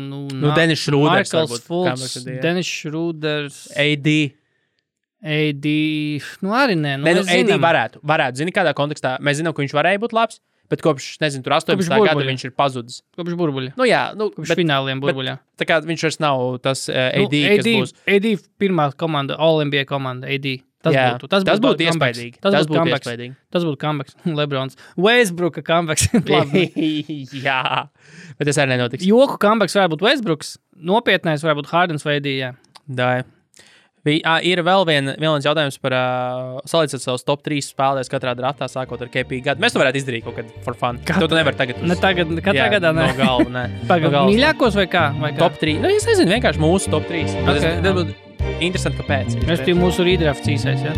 Dennis Schröders
Markels Fultz, Dennis Schröders.
AD.
Arī nē.
AD varētu. Zini, kādā kontekstā. Mēs zinām, ka viņš varēja būt labs, bet kopš, tur 18. gada viņš ir pazudis.
Kopš burbuļa.
Kopš
fināliem burbuļā.
Tā kā viņš vairs nav tas AD, kas būs.
AD pirmā komanda, All-NBA komanda, AD. Tas būtu
iespaidīgi.
Tas būtu comebacks. Lebrons. Westbrooka comebacks.
Jā, bet tas arī nenotiks.
Joku comebacks varētu būt Westbrooks. Nopietnais varētu būt Hardens vai AD, jā.
Ir vēl viens jautājums par salīdzināt savus top 3 spēlētājus katrā draftā, sākot ar KP gadu. Mēs to varētu izdarīt kaut kad for fun. Tu nevari tagad.
Katrā gadā, ne?
No galva, ne.
Mīļākos vai kā?
Top 3. Es nezinu, vienkārši mūsu top 3. Tas būtu interesanti, kāpēc.
Mēs tie mūsu redrafts īsais, jā?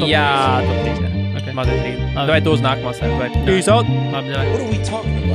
Jā, top 3. Mazliet 3. Vai tu uz nākamā sēdu? Peace out!
What are we talking about?